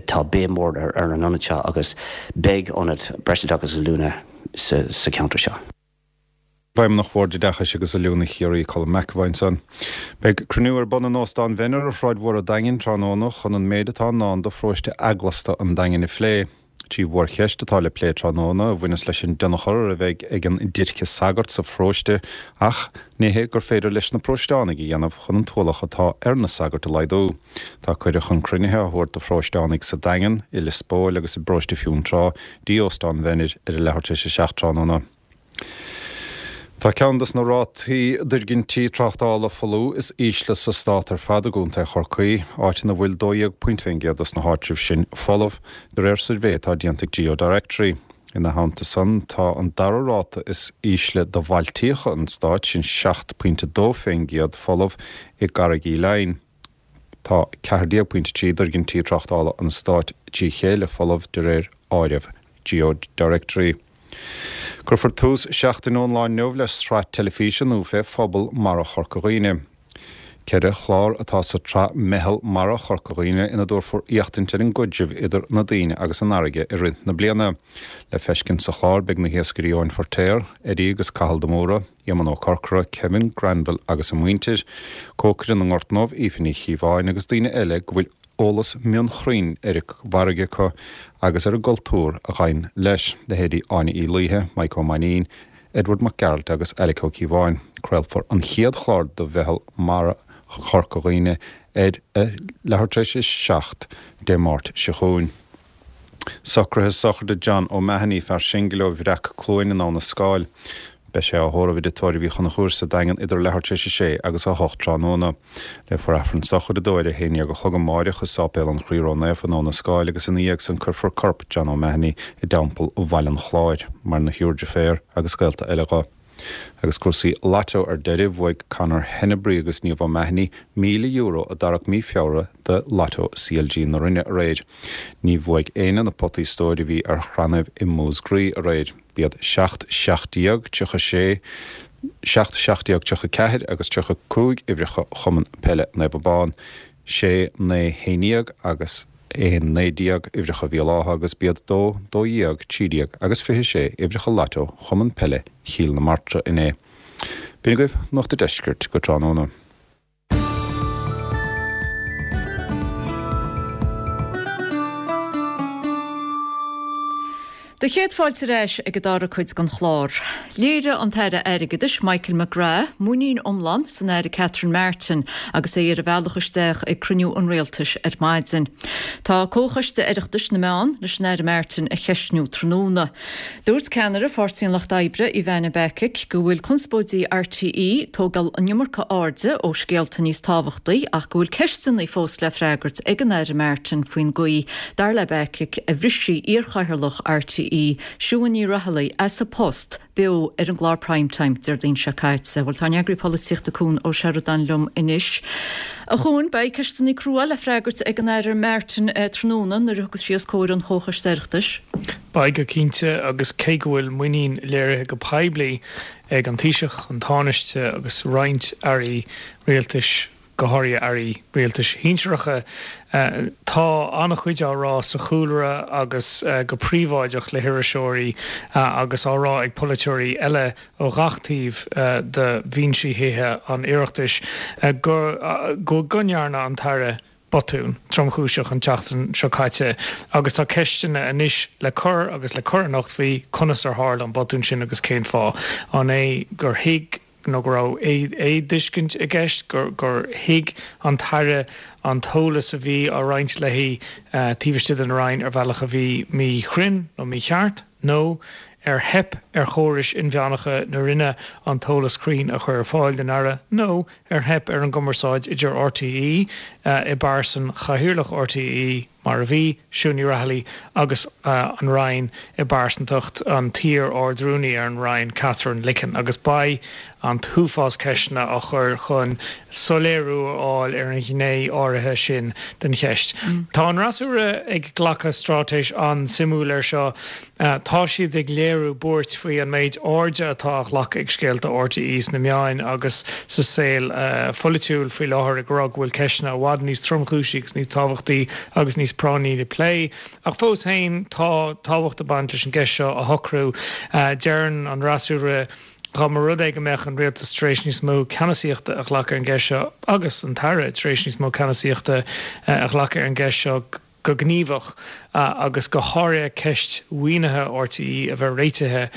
tá béim mhór ar an ionad seo agus beidh ionad breisoideachais agus oiliúna sa cheantar seo.
Feidhmeannach Bhord Oideachais agus Oiliúna Chiarraí, Colm McEvoy ansan. Beidh cruinniú ar bun in Óstán Mhenner ar Shráid Mhór an Daingin tráthnóna chun an méid atá i ndán do pharóiste eaglasta an Daingin a phlé. Trí mhórcheist atá le plé tráthnóna a bhaineas leis an dtionchar a bheidh ag an déirce sagart sa pharóiste ach nithe gur féidir leis na paróisteánaigh a dhéanamh chun an t-ualach atá ar na sagairt a laghdú. Tá cuireadh chun cruinnithe á thabhairt do pharóisteánaigh sa Daingean, i Lios Póil agus i bparóiste Fionntrá dtí Óstán Mhenner ar a leathuair tar éis a 7 tráthnóna. Tá ceann des na rátaí d'fhoirgintí tráchtála folamh is ísle sa stát ar fad i gContae Chorcaí, áit ina bhfuil 12 pointe fén gcéad des na háitribh sin folamh, de réir suirbhé atá déanta ag GeoDirectory. Ina theannta san, tá an dara ráta is ísle do bhailtíocha an stáit, sin 7 pointe 2 fén gcéad folamh i gCarraig Uí Leighin. Tá 14 pointe 3 d'fhoirgintí tráchtála an stáit trí chéile folamh de réir áireamh GeoDirectory. Cuirfear tús seachtain ón lá inniu le sraith teilifíse nua fé phobal mara Chorca Dhuibhne. Ceithre chlár atá sa tsraith Meitheal Mara Chorca Dhuibhne ina dtabharfar éachtaint ar an gcaidreamh idir na daoine agus an fharraige i rith na bliana. Le feiscint sa chlár beidh na hiascairí Eoin Feirtéar, Eddie agus Cathal de Mórdha, Éamonn Ó Corcora, Kevin Granville agus a muintir, cócaire na nGort nDubh, Aoife Ní Chíobháin agus daoine eile go bhfuil eolas mionchruinn ar an bhfarraige acu agus ar an gcultúr a ghabhann leis, leithéidí Áine Uí Laoithe, Maidhc Ó Mainnín, Edward Mac Gearailt agus Alec Ó Cíobháin. Craolfar an chéad chlár de Mheitheal Mara Chorca Dhuibhne ar a leathuair tar éis a 7 Dé Máirt seo chugainn. Socruithe sochraide John O'Mahony, fear singil ó Bhreac Cluain in Abha na Scáil. Beidh sé á thórramh i dTigh Tórraimh Uí Chonchúir sa Daingean idir leathuair tar éis a sé agus a hocht tráthnóna. Léifear Aifreann sochraide dó ar a haon dhéag a chlog amáireach i Sáipéal an Chroí Ró-Naofa in Abha na Scáil agus ina dhiaidh san cuirfear corp John O'Mahony i dTeampall Bhaile an Chláir. Maireann a thriúr deirféar agus gaolta eile dho. Agus cúrsaí Lotto ar deireadh, bhuaigh Conor Hennebry agus Niamh O'Mahony €1,000 a dtarrac mí Feabhra de Lotto CLG na Rinne aréir. Ní bhuaigh éinne na potaí stóir a bhí ar chrannaibh i Múscraí aréir. B'iad 7, 17, 36, 7, 17, 34 agus 35 uimhreacha Chumann Peile Naomh Abán, 6, 9, 11 agus 1, 19 uimhreacha Bhéal Átha agus b'iad 2, 12, 13 agus 26 uimhreacha Lotto Chumann Peile Chill na Martra inné. B'in agaibh Nuacht a' Deiscirt go tráthnóna.
Do chéad fáilte ar ais ag an dara cuid den chlár. Léirigh an tAire Airgeadais Michael McGrath muinín iomlán san Aire Catherine Martin agus é ar a bhealach isteach ag cruinniú an Rialtais ar maidin. Tá Comhchoiste Oireachtais na Meán leis an Aire Martin a cheistniú tráthnóna. Dúirt ceannaire Pháirtí an Lucht Oibre, Ivana Bacik, go bhfuil conspóidí RTÉ ag tógáil an iomarca airde ó scéalta níos tábhachtaí ach go bhfuil ceisteanna fós le freagairt ag an Aire Martin faoin gcaoi, dar le Bacik, a bhris sí iarchathaoirleach RTÉ, Siún Ní Raghallaigh, as a post beo ar an gclár Prime Time Déardaoin seo caite. Bhuel, tá ár n-eagraí polaitíochta Cuan Ó Seireadáin liom anois. A Chuain, beidh ceisteanna crua le freagairt ag an Aire Martin tráthnóna nuair a thiocfas sí os comhair an Chomhchoiste Oireachtais.
Beidh go cinnte, agus cé go bhfuil muinín léirithe go poiblí ag an Taoiseach, an Tánaiste agus roinnt airí rialtais. go háirithe airí rialtais shinsearacha. Tá an-chuid á rá sa chúlra agus go príobháideach le hiriseoirí agus á rá ag polaiteoirí eile ó ghach taobh de bhinsí Thithe an Oireachtais go go ndearna an tAire botún tromchúiseach an tseachtain seo caite agus tá ceisteanna anois le cur agus le cur anocht faoi conas ar tharla an botún sin agus cén fáth. An é gur thuig nó go raibh éamhthuiscint i gceist, gur thuig an tAire an t-eolas a bhí á roinnt léi taobh istigh den Roinn ar bhealach a bhí míchruinn nó mícheart, nó ar theip ar chórais inmheánacha na Roinne an t-eolas cruinn a chur ar fáil don Aire, nó ar theip ar an gcumarsáid idir RTÉ i bpearsan Chathaoirleach RTÉ, mar a bhí, Siún Ní Raghallaigh, agus an Roinn i bpearsantacht an t-iar-Ard-Rúnaí ar an Roinn, Katherine Licken, agus beidh an t-uafás ceisteanna á chur chun soiléiriú a fháil ar an ghné áirithe sin den cheist. Tá an fhreasúra ag glacadh straitéis an-suimiúil air seo. Tá siad ag léiriú buairt faoi an méid airde atá á ghlacadh ag scéalta RTÉ sna meáin agus sa saol pholaitiúil faoi láthair, ag rá go bhfuil ceisteanna i bhfad níos tromchúisí agus níos tábhachtaí agus níos práinní le plé. Ach fós féin, tá tábhacht ag baint leis an gceist seo a shocrú. Deireann an fhreasúra dá mba rud é go mbeadh an rialtas tar éis níos mó ceannasaíochta a ghlacadh ar an gceist seo agus an tAire tar éis níos mó ceannasaíochta a ghlacadh ar an gceist seo, go gníomhach agus go háirithe ceist mhaoinithe RTÉ a bheith réitithe,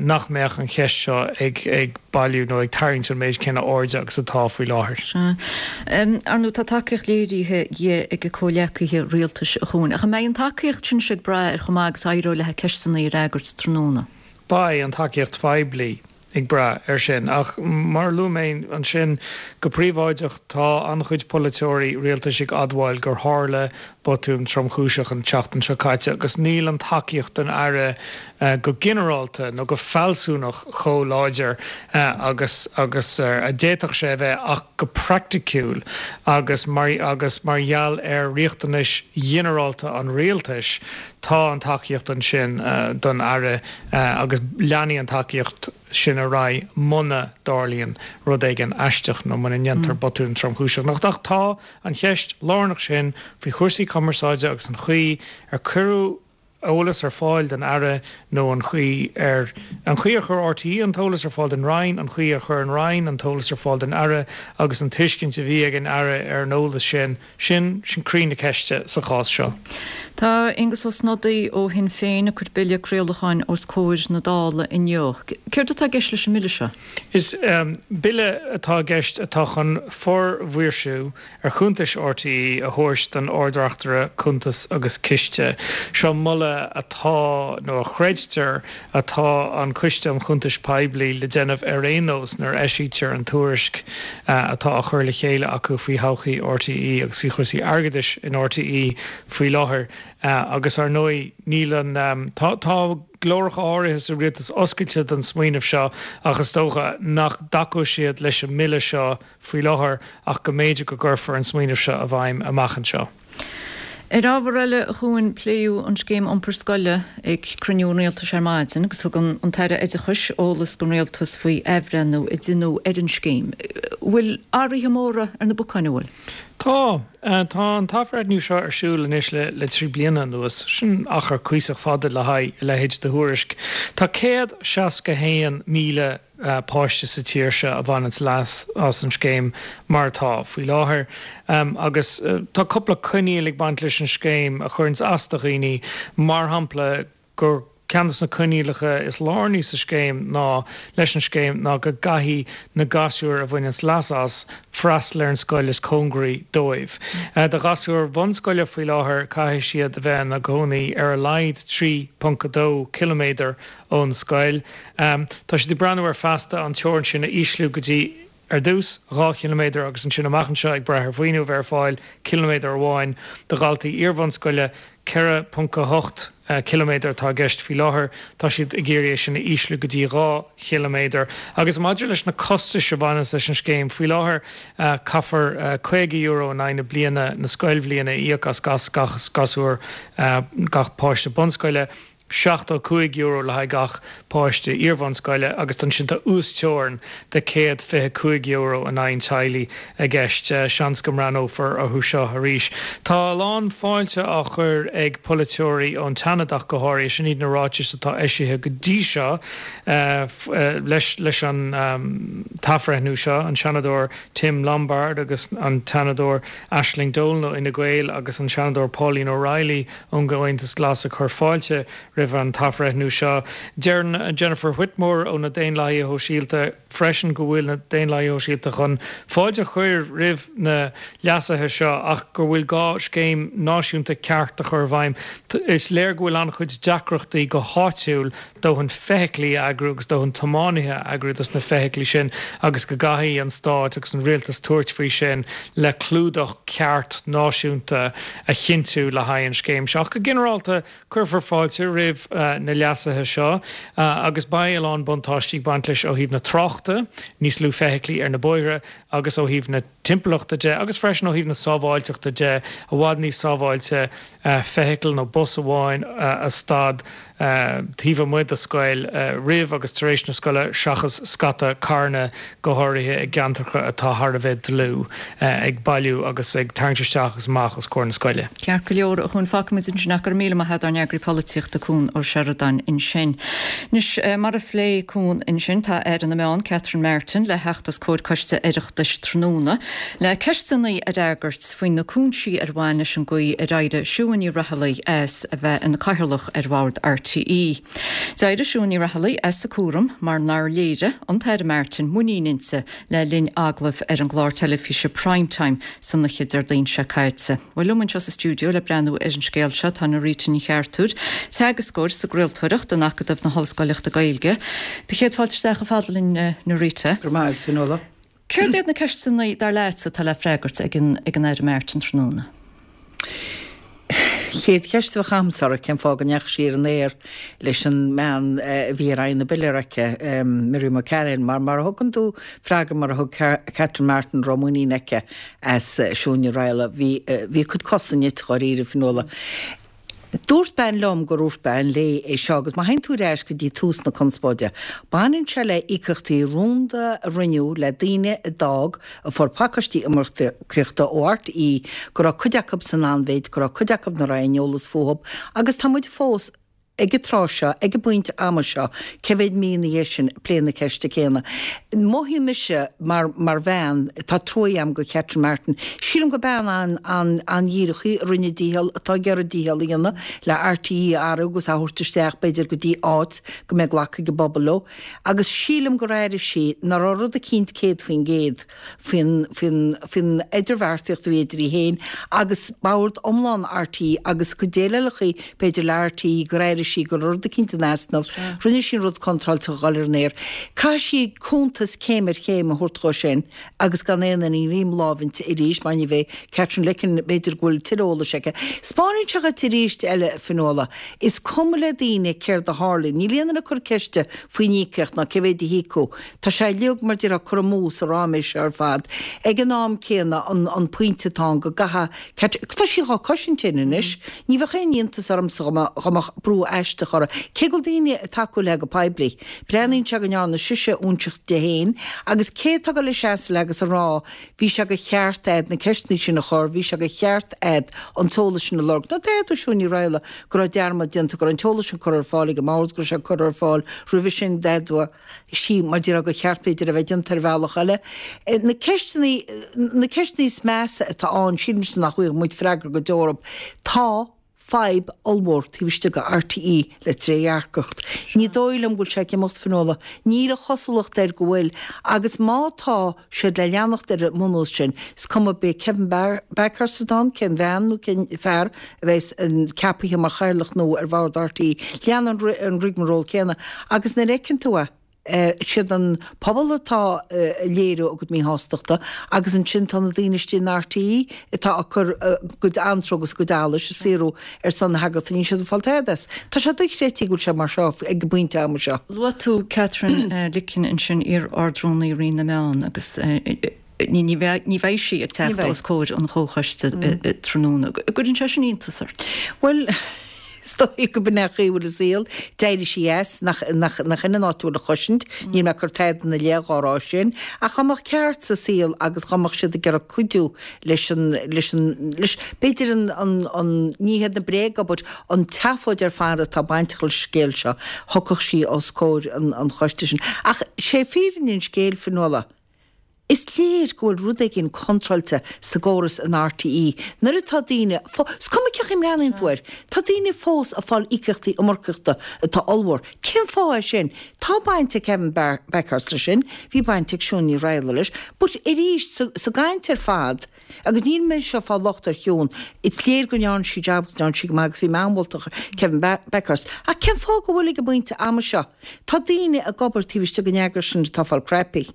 nach mbeadh an cheist seo ag bailiú nó ag tarraingt an méid céanna airde agus atá faoi láthair.
Sea. Ar ndóigh, tá tacaíocht léirithe di ag a comhghleacaithe rialtais, a Chuain. Ach an mbeidh an tacaíocht sin ag brath ar chomh maith agus a éireoidh léi ceisteanna a fhreagairt tráthnóna?
Beidh an tacaíocht phoiblí ag brath air sin. Ach mar a luaigh mé ansin, go príobháideach, tá an-chuid polaiteoirí rialtais ag admháil gur tharla botún tromchúiseach an tseachtain seo caite agus níl an tacaíocht don Aire go ginearálta nó go fealsúnach chomh láidir agus agus a d'fhéadfadh sé a bheith ach go praiticiúil agus mar agus mar gheall ar riachtanais ghinearálta an rialtais tá an tacaíocht ansin don Aire agus leanfaidh an tacaíocht sin ar aghaidh muna dtarlaíonn rud éigin aisteach nó muna ndéantar botún tromchúiseach. Ach tá an cheist lárnach sin faoi chúrsaí cumarsáide agus an chaoi ar cuireadh eolas ar fáil don Aire nó an chaoi ar an chaoi ar chuir RTÉ an t-eolas ar fáil don Roinn, an chaoi ar chuir an Roinn an t-eolas ar fáil don Aire agus an tuiscint a bhí ag an Aire ar an eolas sin. Sin, sin croí na ceiste sa chás seo.
Tá Aengus Ó Snodaigh ó Shinn Féin ag cur bille craolacháin os comhair na Dála inniu. Céard atá i gceist leis an mbille seo?
Is bille atá i gceist atá chun formhaoirsiú ar chuntais RTÉ a thabhairt don Ard-Reachtaire Cuntas agus Ciste. Seo moladh atá, nó a chreidtear atá an Coiste um Chuntais Poiblí le déanamh ar aon nós nuair a eisítear an tuairisc atá á chur le chéile acu faoi thodhchaí RTÉ agus faoi chúrsaí airgeadais in RTÉ faoi láthair. Agus ar ndóigh níl an, tá, tá glóracha áirithe sa rialtas oscailte don smaoineamh seo ach is dócha nach dtacóidh siad leis an mbille seo faoi láthair ach go mb'fhéidir go gcuirfear an smaoineamh seo i bhfeidhm amach anseo.
Ar ábhar eile, a Chuain, pléadh an scéim iompair scoile ag cruinniú an Rialtais ar maidin agus thug an tAire Oideachais eolas don Rialtas faoi athbhreithniú a deineadh ar an scéim. Bhfuil athruithe móra ar na bacáin, an bhfuil?
Tá. Tá an t-athbhreithniú seo ar siúl anois le 3 bliana anuas. Sin achar cuíosach fada le haghaidh a leithéid de thuairisc. Tá 161,000 páiste sa tír seo a bhaineanns leas as an scéim mar atá faoi láthair. Agus tá cúpla coinníoll ag baint leis an scéim a chuireanns as do dhaoine, mar shampla gur ceann de na coinníollacha is lárnaí sa scéim ná leis an scéim ná go gcaithfidh na gasúir a bhaineanns leas as freastal ar an scoil is cóngaraí dóibh. Do ghasúir bhunscoile faoi láthair caithfidh siad a bheith ina gcónaí ar a laghad 3.2 ciliméadar ón scoil. Tá siad ag breathnú air feasta an teorainn sin a ísliú go dtí, ar dtús, 2 chiliméadar agus ansin amach anseo, ag brath ar mhaoiniú a bheith ar fáil, ciliméadar amháin. Do dhaltaí iarbhunscoile, 4.8 ciliméadar atá i gceist faoi láthair. Tá siad ag iarraidh é sin a ísliú go dtí 2 chiliméadar. Agus maidir leis na costais a bhaineanns leis an scéim, faoi láthair caithfear €50 in aghaidh na bliana, na scoilbhliana, a íoc as gach gasúr, gach páiste bunscoile. €75 le haghaidh gach páiste iarbhunscoile agus ansin tá uasteorainn de €125 in aghaidh an teaghlaigh i gceist. Seans go mbreathnófar orthu seo arís. Tá a lán fáilte á chur ag polaiteoirí ón tSeanad ach go háirithe. Sin iad na ráitis atá eisithe go dtí seo leis an t-athbhreithniú seo, an Seanadóir Tim Lombard agus an tSeanadóir Aisling Dolan ó Fhine Gael agus an Seanadóir Pauline O'Reilly ón gComhaontas Glas ag cur fáilte roimh an t-athbhreithniú seo. Deireann Jennifer Whitmore ó na Daonlathaithe Shóisialta freisin go bhfuil na Daonlathaithe Shóisialta chun fáilte a chur roimh na leasuithe seo ach go bhfuil gá scéim náisiúnta ceart a chur i bhfeidhm. Is léir go bhfuil an-chuid deacrachtaí go háitiúil dóthain feithiclí a eagrú agus dóthain tiománaithe a eagrú dos na feithiclí sin agus go gcaithfidh an stát agus an rialtas tabhairt faoi sin le clúdach ceart náisiúnta a chinntiú le haghaidh an scéim seo. Ach go ginearálta cuirfear fáilte roimh na leasuithe seo agus beidh a lán buntáistí ag baint leis ó thaobh na tráchta, níos lú feithiclí ar na bóithre, agus ó thaobh na timpeallachta de agus freisin ó thaobh na sábháilteachta de, i bhfad níos sábháilte feithicil nó bus amháin a stad taobh amuigh de scoil roimh agus tar éis na scoile seachas scata carranna, go háirithe i gceantracha atá thar a bheith dlúth, ag bailiú agus ag tarraingt isteach agus amach os comhair na scoile.
Ceart go leor, a Chuain, fágfaimid ansin ach go raibh míle maith agat ár n-eagraí polaitíochta Cuan Ó Seireadáin ansin. Anois, mar a phléigh Cuan ansin, tá Aire na Meán, Catherine Martin, le theacht os comhair Coiste Oireachtais tráthnóna le ceisteanna a fhreagairt faoi na cúinsí ar bhain leis an gcaoi ar éirigh Siún Ní Raghallaigh as a bheith ina Cathaoirleach ar Bhord RTÉ. D'éirigh Siún Ní Raghallaigh as a cúram mar nár léirigh an tAire Martin muinín inti le linn agallaimh ar an gclár teilifíse Prime Time san oíche Déardaoin seo caite. Bhuel, liom anseo sa stiúideo le breathnú ar an scéal seo tá Norita Ní Cheartúir, teagascóir sa gcraoltóireacht in Acadamh na hOllscoileachta Gaeilge. Do chéad fáilte isteach chomh fada linn, Norita.
Go raibh maith agat, Fionnuala.
Céard iad na ceisteanna, dar leatsa, atá le freagairt ag an Aire Martin tráthnóna?
Chéad cheist a bheadh agamsa uirthi, cén fáth go ndeachaigh sí ar an aer leis an mbean a bhí ar aghaidh na bpiléar aici, Miriam O'Callaghan, mar mar a thugann tú freagra mar a thug Catherine Martin raibh muinín aici as Siún Ní Raghallaigh, bhí bhí a cuid cosa nite dháiríre, Fionnuala. Dúirt bean liom gur dhúirt bean léi é seo agus má théann tú ar ais go dtí tús na conspóide, baineann sé le íocaíochtaí rúnda a rinneadh le daoine a d'fhág, a fuair pacáistí iomarcaíochta ó RTÉ, go raibh cuid acu san anmhéid, go raibh cuid acu nach raibh aon eolas fúthu agus tá muid fós ag an tráth seo, ag an bpointe ama seo, cé mhéad mí ina dhiaidh sin, ag plé na ceiste céanna. Mothaíonn mise mar, mar bhean, tá trua agam do Catherine Martin. Sílim gur bean an, an, an-dhíreach í, a rinne a dícheall, atá ag iarraidh a dícheall a dhéanamh le RTÉ a athrú agus a thabhairt isteach b'fhéidir go dtí áit go mbeidh glacadh ag an bpobal leo. Agus sílim gur airigh sí nach raibh rud eicínt 100% faoin, faoin, faoin idirbheartaíocht a bhí idir í féin agus bord iomlán RTÉ agus cuid eile b'fhéidir le RTÉ gur airigh sí go raibh rud eicínt in easnamh. Rinne sí an rud contráilte a dhul ar an aer. Caithfidh sí cuntas céim ar chéim a thabhairt dhó sin agus gan aon ní i láimh inti arís mar ní bheidh Katherine Licken b'fhéidir go bhfuil tuilleadh eolais aici. Spáineann sé dhuit arís eile, Fionnuala, is cuma le daoine céard a tharlaíonn. Níl aon duine ag cur ceiste faoin íocaíocht ná cé mhéad a híocadh. Tá sé uilig mar déarfá curtha amú sa ráiméis seo ar fad. Ag an am céanna an pointe atá ann go gcaithfidh Catherine, tá sí dhá cosaint féin anois. Ní bheadh aon iontas ormsa dá mbeadh brú aisteach uirthi, cé go bhfuil daoine ag tacú léi go poiblí. Breathnaíonn sé go ndearna sise óinseach di féin agus cé atá ag dul a seasamh léi agus a rá bhí sé de cheart a'd na ceisteanna sin a chur, bhí sé de cheart a'd an t-eolas sin a lorg. Nó d'fhéadfadh Siún Ní Raghallaigh go raibh dearmad déanta, go raibh an t-eolas sin curtha ar fáil ag an mbord, go raibh sé curtha ar fáil roimhe sin, d'fhéadfadh sí, mar déarfá, gur cheart b'fhéidir a bheith déanta ar bhealach eile. Na ceisteanna, na ceisteanna is measa atá ann, sílimse nach bhfaighidh muid freagra go deo orthu. Tá fadhb ollmhór taobh istigh de RTÉ le trédhearcacht. Ní dóigh liom go bhfuil sé ag imeacht, Fionnuala. Níl an chosúlacht air go bhfuil. Agus má tá siad le leanacht ar an mbunús sin, is cuma beidh Kevin Bakhurst ann, cén bhean nó cén fear a bheas ceapaithe mar chathaoirleach nua ar bhord RTÉ, leanann an rigmarole céanna. Agus nuair a fheiceann tú é, siad an pobal atá ag léiriú a gcuid míshástachta agus ansin tá na daoine istigh in RTÉ atá ag cur a gcuid anró agus a gcuid allais ag saothrú ar son na heagraíochta, níl siad ag fáil tada as. Tá sé dochreidte go bhfuil sé mar seo ag an bpointe ama seo.
Luaigh tú Katherine Licken ansin, iar-Ard-Rúnaí Roinn na Meán agus ní bheidh sí ag teacht os comhair an chomhchoiste tráthnóna. An gcuireann sé sin iontas ort?
Bhuel. Is dóigh go b'in é an chaoi a bhfuil an saol. D'éirigh sí as, nach, nach, nach in an áit a bhfuil an chosaint. Níl mé ag cur tada ina leith dhá rá sin. Ach dá mbeadh ceart sa saol agus dá mbeadh siad ag iarraidh cuidiú leis an, leis an, leis, b'fhéidir an, an, an, ní hiad na bréaga but an tseafóid ar fad atá bainteach leis an scéal seo, thiocfadh sí os comhair an, an choiste sin. Ach sé fírinne an scéil, Fionnuala, Is léir go bhfuil rud éigin contráilte sa gcóras in RTÉ nuair atá daoine, is cuma cén chaoi a mbreathnaíonn tú air, tá daoine fós ag fáil íocaíochtaí iomarcaíochta atá ollmhór. Cén fáth é sin? Tá baint ag Kevin Bakhurst leis sin, bhí baint ag Siún Ní Raghallaigh leis, but arís, sa gcaint ar fad, agus níl mé anseo ag fáil locht ar Shiún, is léir go ndearna sí jab agus ndearna sí go maith agus bhí mé an-mholtach ar Kevin Bakhurst, ach cén fáth go bhfuil ag an bpointe ama seo, tá daoine ag obair taobh istigh den eagras sin atá ag fáil crappy.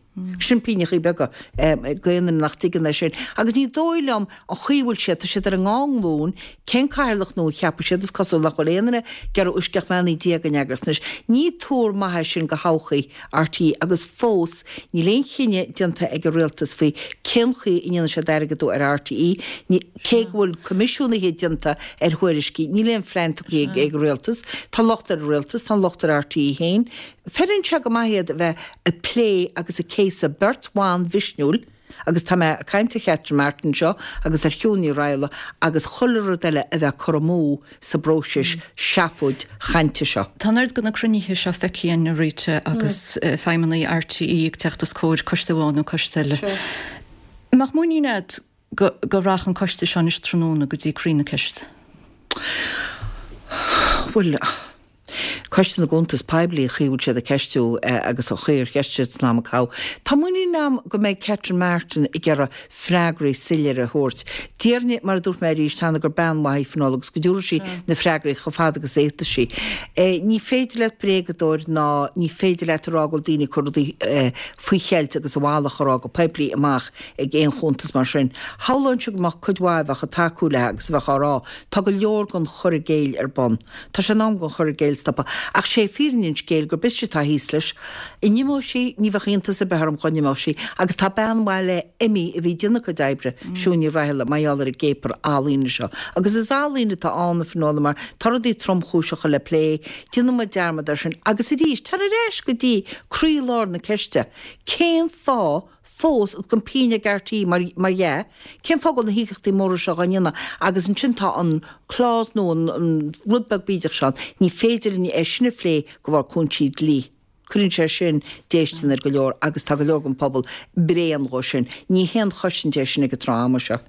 Sin pingneachaí beaga do aon duine nach dtuigeann é sin. Agus ní dóigh liom an chaoi a bhfuil siad, tá siad ar a ndá nglúin, cén cathaoirleach nua a cheapfaidh siad, is cosúil nach bhfuil aon duine ag iarraidh uisce ach mbeannaí Dia don eagras anois. Ní tuar maith é sin do thodhchaí RTÉ agus fós níl aon chinneadh déanta ag an rialtas faoi cén chaoi a ndéanfaidh siad airgeadú ar RTÉ, cé go bhfuil coimisiúnaithe déanta ar thuairiscí, níl aon phlean tugtha ag an rialtas. Tá locht ar an rialtas, tá an locht ar RTÉ féin. Feileann sé go maith iad a bheith ag plé agus ag céasadh beirt bhan mhisniúil, agus tá mé ag caint ar Chatherine Martin anseo agus ar Shiún Ní Raghallaigh agus chuile rud eile a bheith curtha amú sa bpróiseas seafóid chainte seo.
Tá an oiread de na cruinnithe seo feicthe againn, a Rita, agus feidhmeannaigh RTÉ ag teacht os comhair coiste amháin nó coiste eile. An mbeadh muinín agat go go rachadh an coiste seo anois tráthnóna go dtí croí na ceiste?
Bhuel, Coiste na gCuntas Poiblí, an chaoi a bhfuil siad ag ceistiú agus an chaoi ar cheistigh siad san am a caitheadh. Tá muinín agam go mbeidh Catherine Martin ag iarraidh freagraí soiléire a thabhairt. Déarfainn, mar a dúirt mé arís cheana, gur bean mhaith í Fionnuala agus go dtabharfaidh sí na freagraí chomh fada agus a fhéadfas sí. Ní féidir leat bréagadóir ná ní féidir leat a rá go bhfuil daoine ag cur rudaí faoi cheilt agus a mhalairt a rá go poiblí amach ag aon chuntas mar sin. Shamhlóinnse go mbeadh cuid mhaith a bheadh ag tacú léi agus a bheadh á rá, tá go leor den chur i gcéill ar bun. Tá sé in am don chur i gcéill stopadh. Ach sé fírinne an scéil gurb ise atá thíos leis. An n-imeoidh sí, ní bheadh iontas ar bith orm dhá n-imeodh sí. Agus tá bean mhaith léi imithe a bhí ag déanamh a cuid oibre, Siún Ní Raghallaigh, mar gheall ar an gcéapar ealaíne seo. Agus is ealaín atá ann, a Fhionnuala, mar tá rudaí tromchúiseacha le plé, déanann muid dearmad air sin. Agus arís, tar ar ais go dtí croílár na ceiste, cén fáth fós agus gan pingin ag RTÉ mar mar dhea, cén fáth go bhfuil na híocaíochtaí móra seo dhá ndéanamh agus ansin tá an clause nó an an rud beag bídeach seo ann, ní féidir linn é sin a phlé de bharr cúinsí dlí. Cuireann sé sin déistin ar go leor agus tá go leor den phobal bréan dhó sin. Ní haon chosaint é sin ag an tráth ama seo.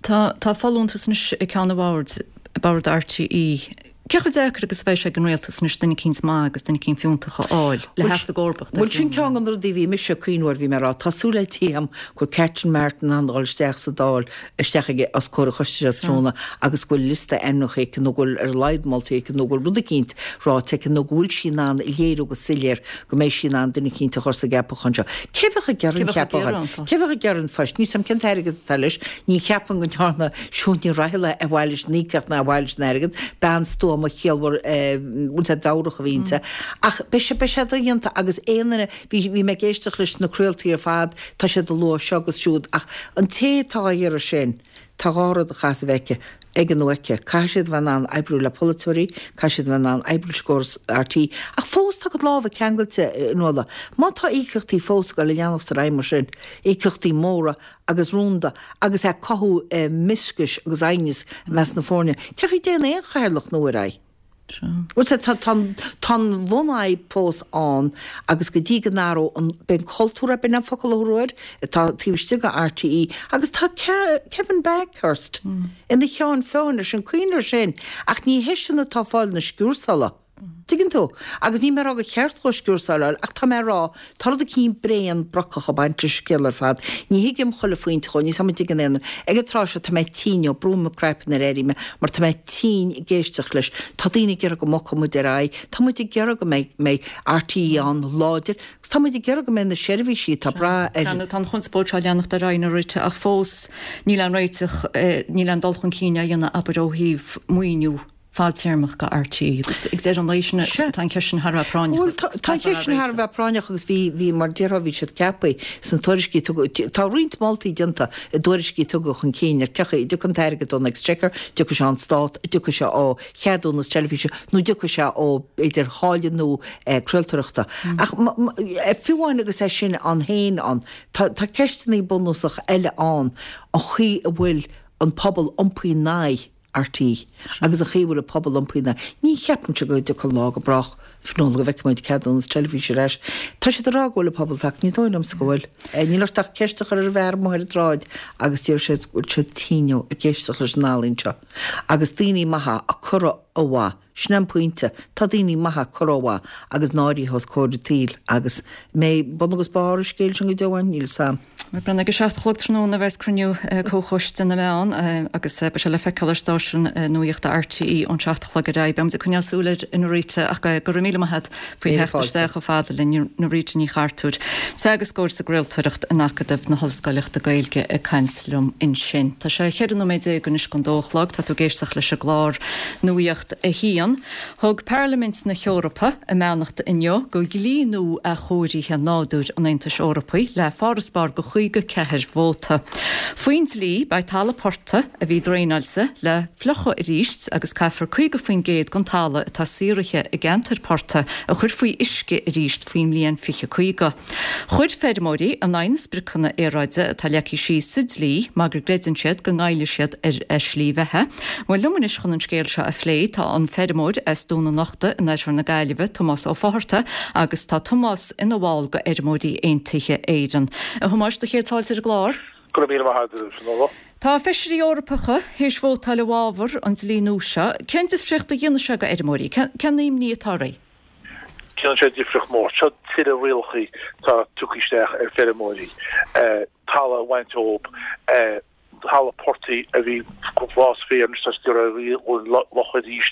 Tá tá folúntas anois ag ceann an bhoird, bord RTÉ. Cé chomh deacair agus a bheidh sé ag an rialtas anois duine eicínt maith agus duine eicínt fiúntach a fháil le theacht i gcomharbacht ar
Bhuel, sin ceann de na rudaí a bhí mise ag cuimhniú air, bhí mé ag rá, tá súil le Dia agam go bhfuil Catherine Martin in ann dul isteach sa Dáil, isteach ag, os comhair an choiste seo tráthnóna agus go bhfuil liosta ainmneacha aici nó go bhfuil ar a laghad moltaí aici nó go bhfuil rud eicínt ráite aici nó go bhfuil sí in ann a léiriú go soiléir go mbeidh sí in ann duine eicínt a chur sa gceapachán seo. Cé bheadh ag iarraidh an cheapachán? Cé bheadh ag iarraidh an phoist? Níl 's a'm cén t-airgead atá leis. Ní cheapaim go ndearna Siún Ní Raghallaigh ar mhaithe leis an íocaíocht ná ar mhaithe leis an airgead. Bean stuama chiallmhar bhfuil 's a'd mheabhrach a bhí inti. Ach beidh sé, beidh sé dodhéanta agus aon duine, bhí, bhí mé ag éisteacht leis na craoltaí ar fad, tá siad ag lua seo agus siúd ach an té atá á iarraidh sin, Tá dhá rud a chaithfeas a bheith aici, aige nó aici. Caithfidh siad a bheith in ann oibriú le polaiteoirí, caithfidh siad a bheith in ann oibriú leis an gcóras RTÉ, ach fós tá a gcuid lámha ceangailte, a Fhionnuala. Má tá íocaíochtaí fós ag dul ag leanacht ar aghaidh mar sin, íocaíochtaí móra agus rúnda agus ag cothú mioscais agus aighneas i measc na foirne, cén chaoi a dtéann aon chathaoirleach nua ar aghaidh? Bhuel, tá, tá, tá an bhunfhadhb fós ann agus go dtí go n-athróidh an, b'é an cultúr é, b'in an focal a thabharfá air, atá taobh istigh de RTÉ agus tá Kevin Bakhurst ina cheann feadhain air sin, cuimhnigh air sin, ach ní heisean atá ag fáil na sciúrsála. Tuigeann tú? Agus níl mé ag rá gur cheart dhó sciúrsáil a fháil ach tá mé ag rá, tá rud eicínt bréan brocach ag baint leis an scéal ar fad. Ní thuigim chuile phointe dhó, níl 's a'm an dtuigeann aon duine. Ag an tráth seo tá mé tinn ó brúim mo craiceann nuair a éirím mar tá mé tinn ag éisteacht leis. Tá daoine ag iarraidh go mbogfadh muid ar aghaidh, tá muid ag iarraidh go mbeidh mbeidh RTÉ ann láidir agus tá muid ag iarraidh go mbeidh na seirbhísí atá ag brath ar
Tá an chonspóid seo ag leanacht ar aghaidh a Rita ach fós níl aon réiteach, níl aon dul chun cinn á dhéanamh abair ó thaobh maoiniú. fadtéarmach do RTÉ agus ag deireadh an lae sin tá an cheist sin thar a bheith práinneach.
Bhuel tá an cheist sin thar a bheith práinneach agus bhí, bhí mar déarfá bhí siad ceaptha sna tuairiscí a tugadh, tá roinnt moltaí déanta i dtuairiscí a tugadh chun cinn ar cén chaoi a dtiocfaidh an t-airgead ón Exchequer, dtiocfaidh sé ón Stát, dtiocfaidh sé ó cheadúnas teilifíse nó dtiocfaidh sé ó b'fhéidir tháille nua craoltóireachta. Ach fiú amháin agus é sin ann féin ann, tá tá ceisteanna bunúsach eile ann, an chaoi a bhfuil an pobal iompaithe in aghaidh RTÉ agus an chaoi a bhfuil an pobal iompaithe ina aghaidh. Ní cheapaimse go dtiocfaidh an lá go brách, Fionnuala, go bhfeicfidh muid ceadúnas teilifíse ar ais. Tá siad ag rá go bhfuil an pobal tagtha, ní dóigh liomsa go bhfuil. Níl ort ach ceist a chur ar an bhfear amuigh ar an tsráid agus déarfaidh siad go bhfuil siad tinn ag éisteacht leis an ealaín seo. Agus daoine maithe á cur ó mhaith. Sin é an pointe. Tá daoine maithe curtha ó mhaith agus náirithe os comhair an tsaoil agus an mbeidh bun agus barr an scéil sin go deo ann? Níl 'fhios a'm.
Ag a 7 a chlog tráthnóna a bheas cruinniú Comhchoiste na Meán agus beidh sé le feiceáil ar stáisiún nuachta RTÉ ón 7 a chlog ar aghaidh. Beidh muid ag coinneáil súil air, a Norita, ach go raibh míle maith agat faoi theacht isteach chomh fada linn, Norita Ní Chartúir, teagascóir sa gcraoltóireacht in Acadamh na hOllscoileachta Gaeilge ag caint liom ansin. Tá sé 14 nóiméad anois don dó a chlog, tá tú ag éisteacht leis an gclár Nuacht a hAon. Thug Parlaimint na hEorpa a mbeannacht inniu do dhlí nua athchóirithe nádúir an Aontais Eorpaigh le farasbarr de 54 vóta. Faoin dlí, beidh talamh portaigh a bhí draenáilte le fliuchadh arís agus caithfear 50% den talamh atá saothraithe i gceantair portaigh a chur faoi uisce arís faoin mbliain 2050. Chuir feirmeoirí in aghaidh na spriocanna aeráide atá leagtha síos sa dlí mar go gcreideann siad go ngoillfidh siad ar a slí bheatha. Bhuel, liom anois chun an scéal seo a phlé tá an feirmeoir as Dún an Uchta in oirthear na Gaillimhe, Tomás Ó Fátharta, agus tá Tomás ina bhall de Fheirmeoirí Aontaithe Éireann. A Thomáis, do chéad fáilte ar an gclár.
Go raibh míle maith agat, a Fhionnuala.
Tá feisirí Eorpacha théis vótáil i bhfabhar an dlí nua seo. Cén difríocht a dhéanfaidh sé do fheirmeoirí? Cén imní atá oraibh?
Déanann sé difríocht mór. Seo tuilleadh rialacha atá tugtha isteach ar feirmeoirí, talamh a bhaint ób, talamh portaigh a bhí ag fás féar anois tá siad ag iarraidh é a fhliuchadh arís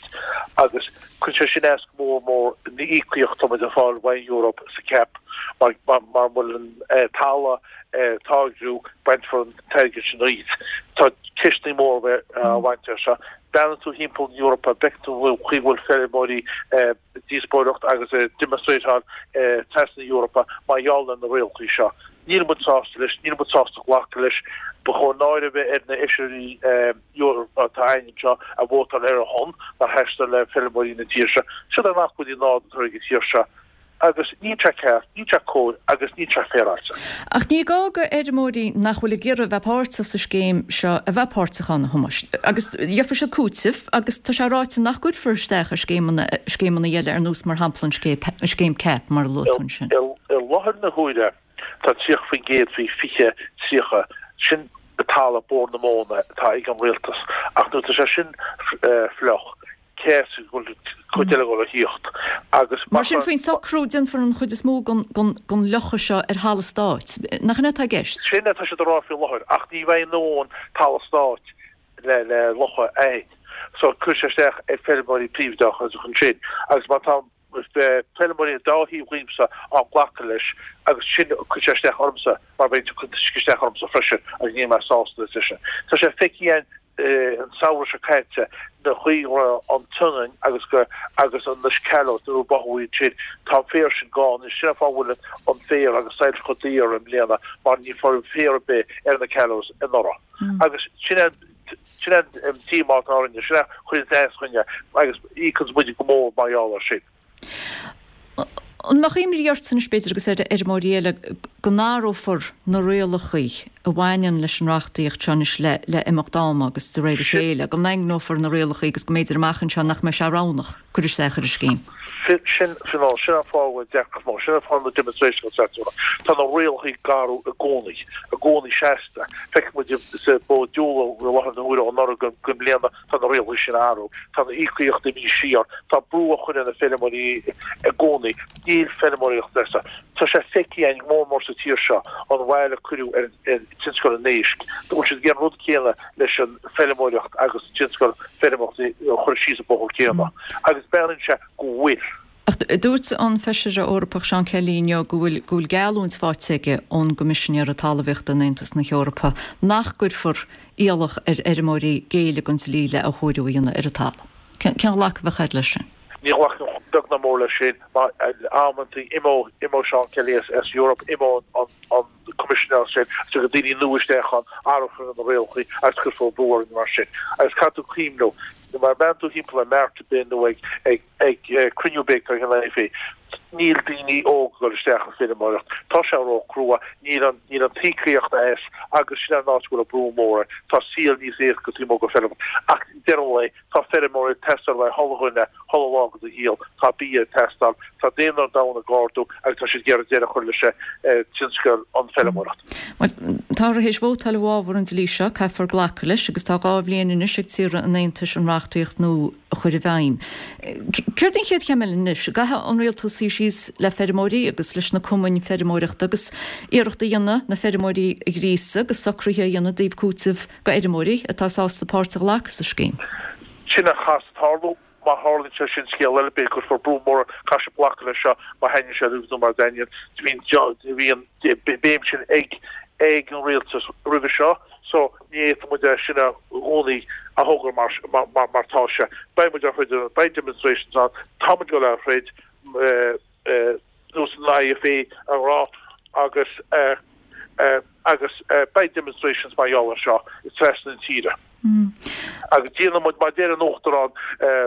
agus cuireann sé sin as go mór mór na íocaíocht atá muid ag fáil ón Eoraip sa CAP mar mura bhfuil an talamh ag táirgiú bainfear an t-airgead sin díot. Tá ceisteanna móra á bhaint air seo. Breathnaíonn tú thimpeall na Eorpa, bhfeiceann tú an chaoi a bhfuil feirmeoirí ag díospóireacht agus ag demonstrateáil trasna na Eorpa mar gheall ar na rialacha seo. Níl muid sásta leis, níl muid sásta glacadh leis. Ba chóir náire a bheith ar na Fheisirí Eorpacha atá againn anseo a vótáil ar a shon, nár sheas le feirmeoirí na tíre seo. Siod an acmhainn nádúrtha ag an tír seo. Agus níl sé ceart, níl sé cóir agus níl sé féaráilte.
Ach ní gá go fheirmeoirí nach bhfuil ag iarraidh a bheith páirteach sa scéim seo a bheith páirteach ann, a Thomáis. Agus gheobhaidh siad cúiteamh agus tá sé ráite nach gcuirfear isteach ar scéimeanna, scéimeanna eile ar nós mar shampla an scéim CAP mar a luaigh tú ansin.
I láthair na huaire tá 30% faoi 2030, sin talamh Bord na Móna atá ag an rialtas ach nuair atá sé sin fliuch, cé as go bhfuil cuid eile ag dul a thíocht agus
mar sin faoin socrú déanfar an chuid is mó den fhliuchadh seo ar thalamh stáit. Nach in é atá i gceist?
Sin atá siad a rá faoi láthair ach ní bheidh a ndóthain talamh stáit le le fliuchadh a fhad. So cuirfidh sé isteach ar feirmeoirí príobháideacha ansin agus má tá feirmeoirí an dá thaobh dhíomsa á nglacadh leis agus sin cuirfidh sé isteach ormsa mar beidh an t-uisce isteach ormsa freisin agus níl mé sásta leis sin. Tá sé feicthe againn an samhradh seo caite na chaoi go raibh an tSionainn agus go agus an na callows nuair a báthadh iad sin tá an féar sin gann anois sin an fáth a bhfuil an féar agus silage chomh daor i mbliana mar ní raibh féar ar bith ar na callows anuraidh agus sin an sin an díomá atá orainne sin a chuireann as dúinne agus íocann muid go mór mar gheall air sin.
An mbeadh imní ortsa anois, b'fhéidir, agus ar fheirmeoirí eile, go n-athrófar na rialacha a bhaineann leis an reachtaíocht seo anois le imeacht ama agus de réir a chéile, go ndaingneofar na rialacha agus go mb'fhéidir amach anseo nach mbeidh sé roghnach cur isteach ar an scéim?
Sin, sin, sin an fáth a bhfuil deacracht mór, sin an fáth na demonstrations atá. Tá na rialacha ag athrú i gcónaí, i gcónaí seasta. Feiceann muid sa Bord Diúla i láthair na huaire ó anuraidh go i mbliana, Tá na rialacha sin ag athrú. Tá na íocaíochtaí imithe siar. Tá brú á chur ar na feirmeoirí i gcónaí. Níl feirmeoireacht leasa. Tá sé feicthe againn go mór mór sa tír seo an bhail a cuireadh ar tionscal an éisc. Bhfuil siad ag déanamh an rud céanna leis an feirmeoireacht agus tionscal feirmeoireachta a chur síos an bóthar céanna. Agus breathnaíonn sé go bhfuil.
Ach dúirt an Feisire Eorpach Seán Kelly inniu go bhfuil go bhfuil geallúint faighte aige ón gCoimisinéara Talmhaíochta in Aontas na hEorpa nach gcuirfear iallach ar fheirmeoirí géilleadh don dlí le athchóiriú a dhéanamh ar an talamh. Cén ghlacadh a bheadh agat leis sin?
Ní ghlacaim beag ná mór leis sin mar amantaí imeoidh imeoidh Seán Kelly as as Europe, imeoidh an an Coimisinéir sin, agus tiocfaidh daoine nua isteach ann, athrófar na rialacha agus cuirfear brú orainn mar sin. Agus caithfidh tú cuimhniú, má bhreathnaíonn tú thimpeall ar mart ar bith nó ag ag ag cruinniú ar bith atá ag an IFA, níl daoine óga ag dul isteach sa bhfeirmeoireacht. Tá sé ró-chrua, níl an níl an t-íocaíocht as agus sin an áit a bhfuil an brú mór air. Tá saol níos éasca taobh amuigh den bhfeirm. Ach deireadh an lae, Tá feirmeoirí ag teastáil le chuile dhuine, chuile lá de do shaol. Tá bia ag teastáil. Tá daonra an domhain ag ardú agus tá siad ag iarraidh deireadh a chur leis tionscal an feirmeoireacht.
Bhuel, táthar théis vótáil i bhfabhar an dlí seo, caithfear glacadh leis agus tá 2 bhliain anois ag tíortha an Aontais an reachtaíocht nua a chur i bhfeidhm. Céard an chéad chéim eile anois? An gcaithfidh an rialtas suí síos le feirmeoirí agus leis na cumainn feirmeoireachta agus iarracht a dhéanamh na feirmeoirí a ghríosadh agus socruithe a dhéanamh i dtaobh cúiteamh go fheirmeoirí atá sásta páirt a ghlacadh sa scéim.
Sin a chaithfeas tarlú. Má tharlaíonn sé sin, scéal eile, b'fhéidir go gcuirfear brú mór air, caithfidh siad glacadh leis seo, má thaitníonn sé leo nó mura dtaitníonn. Bhí an béim sin ag ag an rialtas roimhe seo so ní fhéadfaidh muid é sin i gcónaí a thoghadh mar mar tá sé. Beidh muid á throid, beidh demonstrations ann, tá muid ag dul á throid. nós an IFA a rá agus agus beidh demonstrations mar gheall air seo trasna na tíre. Agus déanfaidh muid, mar a deir an Uachtarán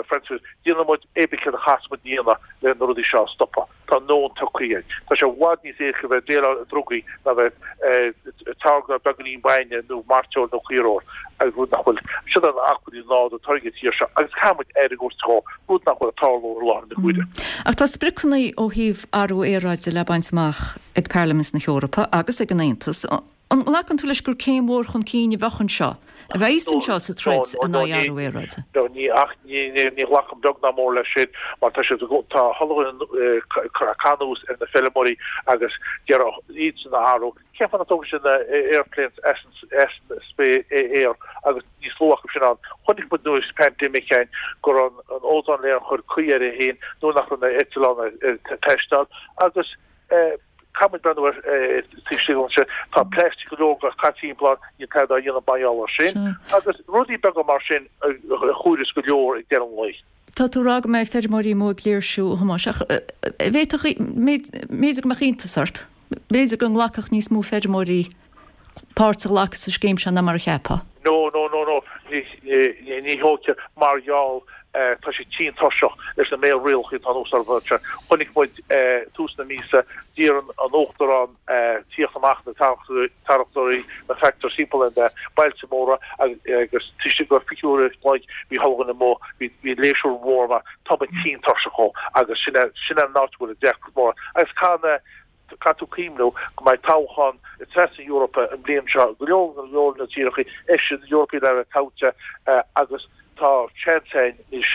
Francis, déanfaidh muid pé ar bith céard a chaithfeas muid a dhéanamh le na rudaí seo a stopadh. Tá an nóin tugtha againn. Tá sé i bhfad níos éasca bheith ag déileáil le drugaí ná bheith ag táirgeadh beagáinín bainne nó mairteoil nó caoirfheoil agus rud nach bhfuil, siod an acmhainní nádúrtha atá ag an tír seo agus caithfidh muid aire a thabhairt dhó, rud nach bhfuil ag tarlú i láthair na huaire.
Ach tá spriocanna ó thaobh athrú aeráide le baint amach ag Parlaimint na hEorpa agus ag an Aontas. An nglacann tú leis gur céim mhór chun cinn a bheadh anseo, a bheas anseo sa troid in aghaidh athrú aeráide?
No, ní, ach ní, ní ghlacaim beag ná mór leis sin mar tá siad, tá chuile dhuine ag caitheamh anuas ar na feirmeoirí agus d'iarraidh iadsan a athrú. Cén fáth nach dtógfaidh siad na airplanes as an aer agus níos lú acu sin ann? Chonaic muid nuair an pandemic againn go raibh an ozone layer ag cur caoi air féin nuair nach raibh na eitleáin ag taisteal agus caithfidh muid breathnú ar taobh istigh ansin. Tá plastic go leor caite timpeall ann, níl tada á dhéanamh mar gheall air sin agus rudaí beaga mar sin a chomhaireas go leor ag deireadh an lae.
Tá tú ag rá go mbeidh feirmeoirí amuigh ag léirsiú, a Thomáis, ach bhféadfadh, b'fhéidir go mbeadh iontas ort, b'fhéidir go nglacfadh níos mó feirmeoirí páirt a ghlacadh sa scéim seo ná mar a cheapfá.
No, no, no, no, ní dócha, mar gheall, tá siad tinn tuirseach leis na méid rialacha atá anuas orthu anseo. Chonaic muid tús na míosa, d'iarr an Uachtarán tíocht amach na tarractóirí, na tractors timpeall ar na bailte móra agus taobh istigh de 20 uair an chloig bhí chuile dhuine amuigh, bhí léirsiú mór mar tá muid tinn tuirseach dhó agus sin é sin é an áit a bhfuil an deacracht mór agus caithfidh na caithfidh tú cuimhniú go mbeidh toghchán trasna na hEorpa an bhliain seo go leor go leor na tíortha Fheisirí Eorpaigh le bheith toghte agus tá seans againn anois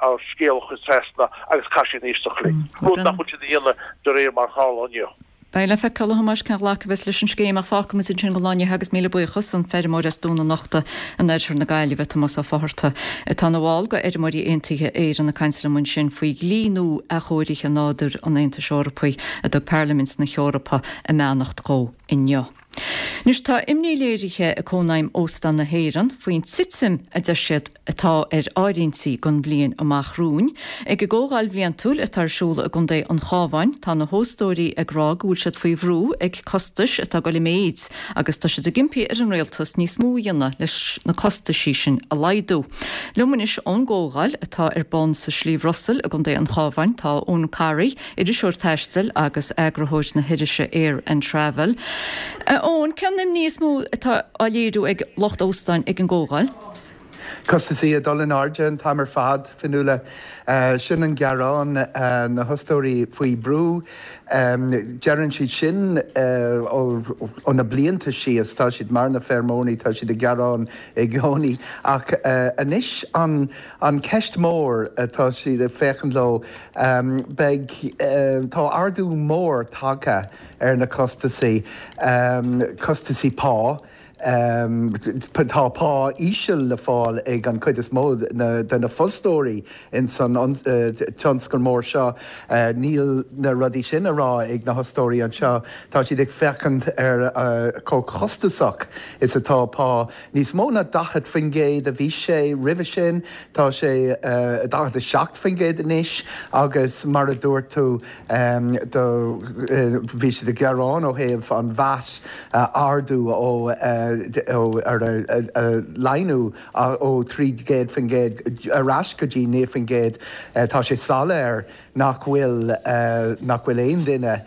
ár scéal a chur trasna agus caithfidh siad éisteacht linn, rud nach bhfuil siad a dhéanamh de réir mar a tharla inniu.
Beidh le feiceáil, a Thomáis, cén ghlacadh a bheas leis an scéim ach fágfaidh muid ansin don lá inniu agus míle buíochas, an feirmeoir as Dún an Uchta in oirthear na Gaillimhe, Tomás Ó Fátharta, atá ina bhall de Fheirmeoirí Aontaithe Éireann ag caint liom ansin faoi dhlí nua athchóirithe nádúir an Aontais Eorpaigh a dtug Parlaimint na hEorpa a mbeannacht dhó inniu. Anois tá imní léirithe ag Cónaidhm Óstán na hÉireann faoin titim a deir siad atá ar áirithintí don bhliain amach romhainn. Ag a gcomhdháil bhliantúil atá ar siúl i gContae an Chabháin tá na hóstóirí ag rá go bhfuil siad faoi bhrú ag costais atá ag dul i méid agus tá siad ag impí ar an rialtas níos mó a dhéanamh leis na costaisí sin a laghdú. Liom anois ón gcomhdháil atá ar bun sa Sliabh Rosail i gContae an Chabháin tá Eoin Corry, iriseoir taistil agus eagarthóir na hirise Air and Travel. A Eoin, cén imní is mó atá á léiriú ag lucht óstáin ag an gcomhdháil?
Costaisí ag dul in airde an t-am ar fad, Fionnuala. Sin an gearán, na hóstóirí faoi brú. Deireann siad sin ó na blianta síos, tá siad mar na feirmeoirí, tá siad ag gearán i gcónaí. Ach anois an ceist mór atá siad ag féachaint leo, Beidh, tá ardú mór tagtha ar na costasaí, costasaí pá. Tá pá íseal le fáil ag an chuid is mó de na fostóirí ins an tionscal mór seo. Níl na rudaí sin á rá ag na hostóirí anseo. Tá siad ag féachaint ar chomh costasach is atá pá. Níos mó ná 40% a bhí sé roimhe sin, tá sé 47% anois agus mar a dúirt tú do bhí siad ag gearán ó thaobh an VAT a ardú ó ar a laghdú ó 300% ar ais go dtí 9%. Tá sé soiléir nach bhfuil nach bhfuil aon duine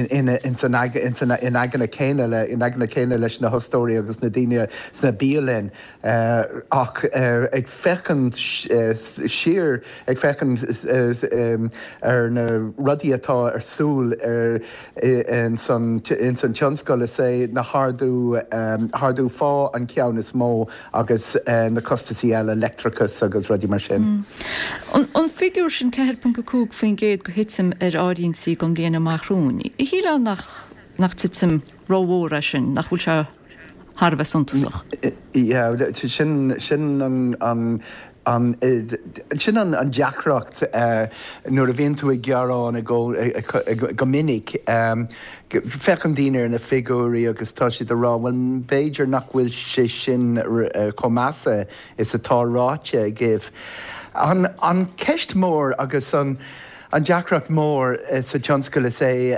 in san in aigne céanna le in aigne céanna leis na hostóirí agus na daoine sna bialanna ach ag féachaint siar ag féachaint ar na rudaí atá ar siúl ar in san in san tionscal is é na hardú hardú phá an ceann is mó agus na costasaí eile, leictreachas agus rudaí mar sin.
An figiúr sin, 4.5% de thitim ar áirithintí don bhliain amach romhainn, shílfeá nach nach titim rómhór é sin, nach bhfuil sé thar a bheith suntasach?
Yeah, sin sin an an an sin an an deacracht nuair a bhíonn tú ag gearán go minic. Féachann daoine ar na figiúirí agus tá siad ag rá, bhuel, b'fhéidir nach bhfuil sé sin chomh measa is atá ráite agaibh. An cheist mhór agus an deacracht mhór sa tionscal is ea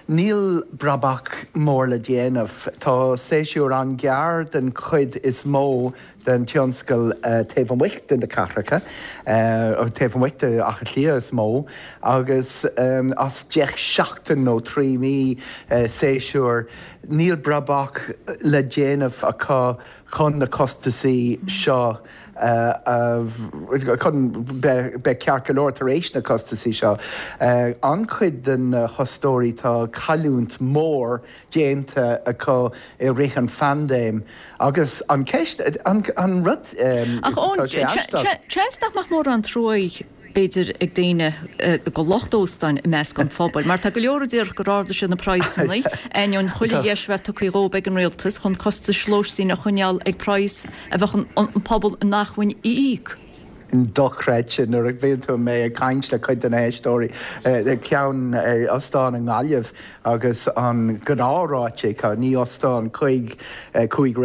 níl brabach mór le déanamh. Tá séasúr an-ghearr den chuid is mó den tionscal taobh amuigh de na cathracha, taobh amuigh de Áth Cliath is mó, agus as 10 seachtain nó 3 mí séasúr, níl brabach le déanamh acu chun na costasaí seo a, chun beith ceart go leor tar éis na costasaí seo. An-chuid de na hostóirí tá cailliúint mhór déanta acu i rith an phaindéim agus an ceist, an rud,
Ach tá sé aisteach. Seans nach mbeadh mórán truaí, b'fhéidir, ag daoine do lucht óstáin i measc an phobail, mar tá go leor a déarfadh gur ardaigh siad na praghsanna, ainneoin chuile dheis a bheith tugtha dhóibh ag an rialtas chun costais lóistín a choinneáil ag praghas a bheadh an pobal in acmhainn a íoc.
dochreidte nuair a bhíonn tú mé ag caint le cuid de na héisteoirí ceann ostán i nGaillimh agus an gnáthráite acu, ní ostán cuig cuig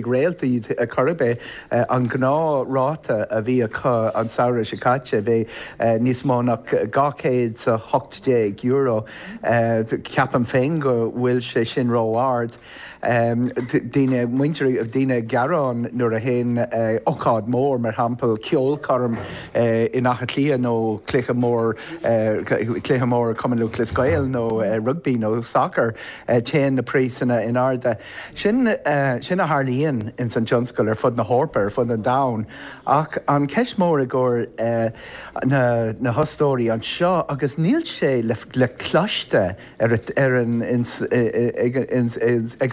réalt iad ar chor ar bith, an gnáthráta a bhí acu an samhradh seo caite bhí níos mó ná €218. Ceapaim féin go bhfuil sé sin ró-ard. Daoine, muintir, daoine ag gearán nuair a théann ócáid mór, mar shampla ceolchoirm in Áth Cliath nó cluiche mór, cluiche mór Cumann Lúthchleas Gael nó rugbaí nó sacar, téann na praghsanna in airde. Sin, sin a tharlaíonn ins an tionscal ar fud na hEorpa, ar fud an domhain. Ach an ceist mór i gcomhair na, na hostóirí anseo, agus níl sé le, le cloiste, ar ar an ag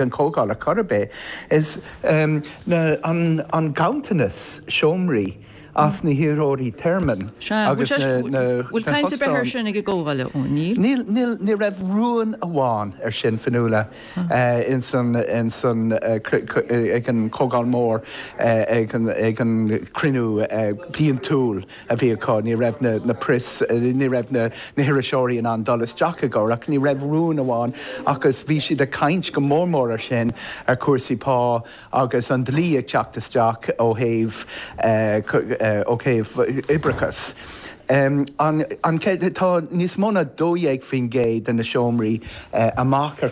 an chomhdháil ar chor ar bith, is na an an ganntanas seomraí as na hiarrthóirí tearmainn
agus na na Bhfuil caint ar bith air sin ag an gcomhdháil, a Eoin?
Níl. Níl, níl, ní raibh rún amháin ar sin, Fionnuala, ins an, ins an, ag an chomhdháil mhór, ag an, ag an cruinniú bliantúil. a bhí acu. Ní raibh na press, ní raibh na hiriseoirí in ann dul isteach i gcomhair ach ní raibh rún amháin agus bhí siad ag caint go mór mór ar sin, ar chúrsaí pá agus an dlí ag teacht isteach ó thaobh, ó thaobh oibreachas. An, an, tá níos mó ná 12% de na seomraí amach ar,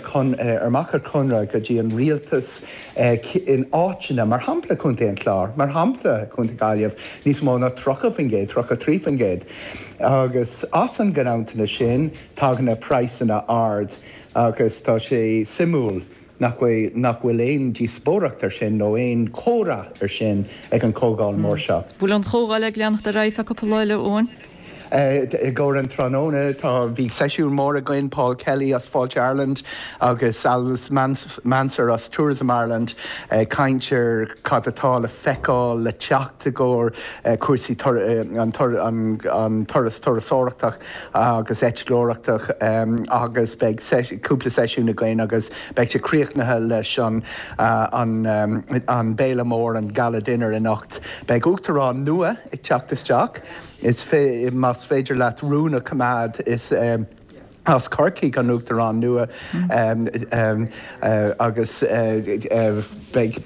amach ar conradh go dtí an rialtas, In áiteanna, mar shampla Contae an Chláir, mar shampla Contae Gaillimh, níos mó ná 30%, 33%. Agus as an nganntanas sin tagann na praghsanna ard agus tá sé suimiúil nach bhfuil nach bhfuil aon díospóireacht ar sin nó aon chomhrá ar sin ag an chomhdháil mór seo.
Bhfuil an chomhdháil ag leanacht ar aghaidh feadh cúpla lá eile, Eoin?
I gcomhair an tráthnóna tá, bhí seisiún mór againn, Paul Kelly as Fáilte Ireland agus Alice Mansergh as Tourism Ireland ag caint ar cad atá le feiceáil le teacht i gcomhair cúrsaí an turas turasóireachtach agus eitleoireachtach agus beidh cúpla seisiún againn agus beidh sé críochnaithe leis an an béile mór, an Gala Dinner anocht. Beidh Uachtarán nua ag teacht isteach. Is más féidir leat rún a choimeád, is as Corcaigh an Uachtarán nua agus beidh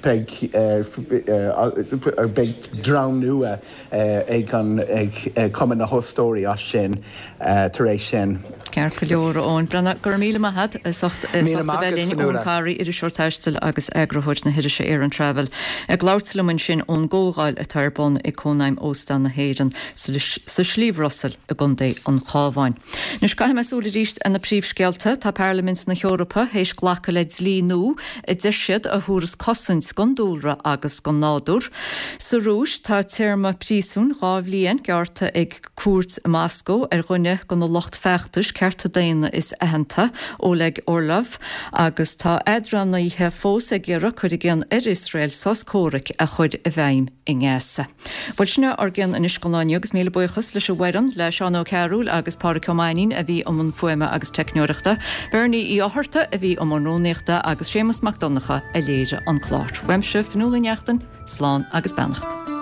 beidh dream nua ag an ag Cumann na hÓstóirí as sin tar éis sin.
Ceart go leor, a Eoin Breathnach, go raibh míle maith agat as ucht a bheith linn. Eoin Carey, iriseoir taistil agus eagarthóir na hirise Aran Travel, ag labhairt liom ansin ón gcomhdháil atá ar bun ag Cónaidhm Óstán na hÉireann sa Sliabh Rosail i gContae an Chabháin. Anois caithfidh mé súil arís ar na príomhscéalta. Tá Parlaimint na hEorpa théis glacadh le dlí nua a deir siad a thabharfas cosaint don dúlra agus don nádúr. Sa Rúis tá téarma príosúin 2 bhliain gearrtha ag cúirt i Moscó ar dhuine de na lucht feachtais cearta daonna is aitheanta, Oleg Orlov, agus tá eadránaithe fós ag iarraidh cur i gcion ar Iosrael sos comhraic a chur i bhfeidhm i nGaza. Bhuel, sin é ár gcion anois don lá inniu agus míle buíochas leis an bhfoireann, le Seán Ó Cearúil agus Pádraic Ó Mainnín a bhí i mbun fuaime agus teicneoireachta, Bernie Uí Fhátharta a bhí i mbun rúnaíochta agus Séamus Mac Donncha a léirigh an clár. Uaimse, Fionnuala Ní Neachtain, slán agus beannacht.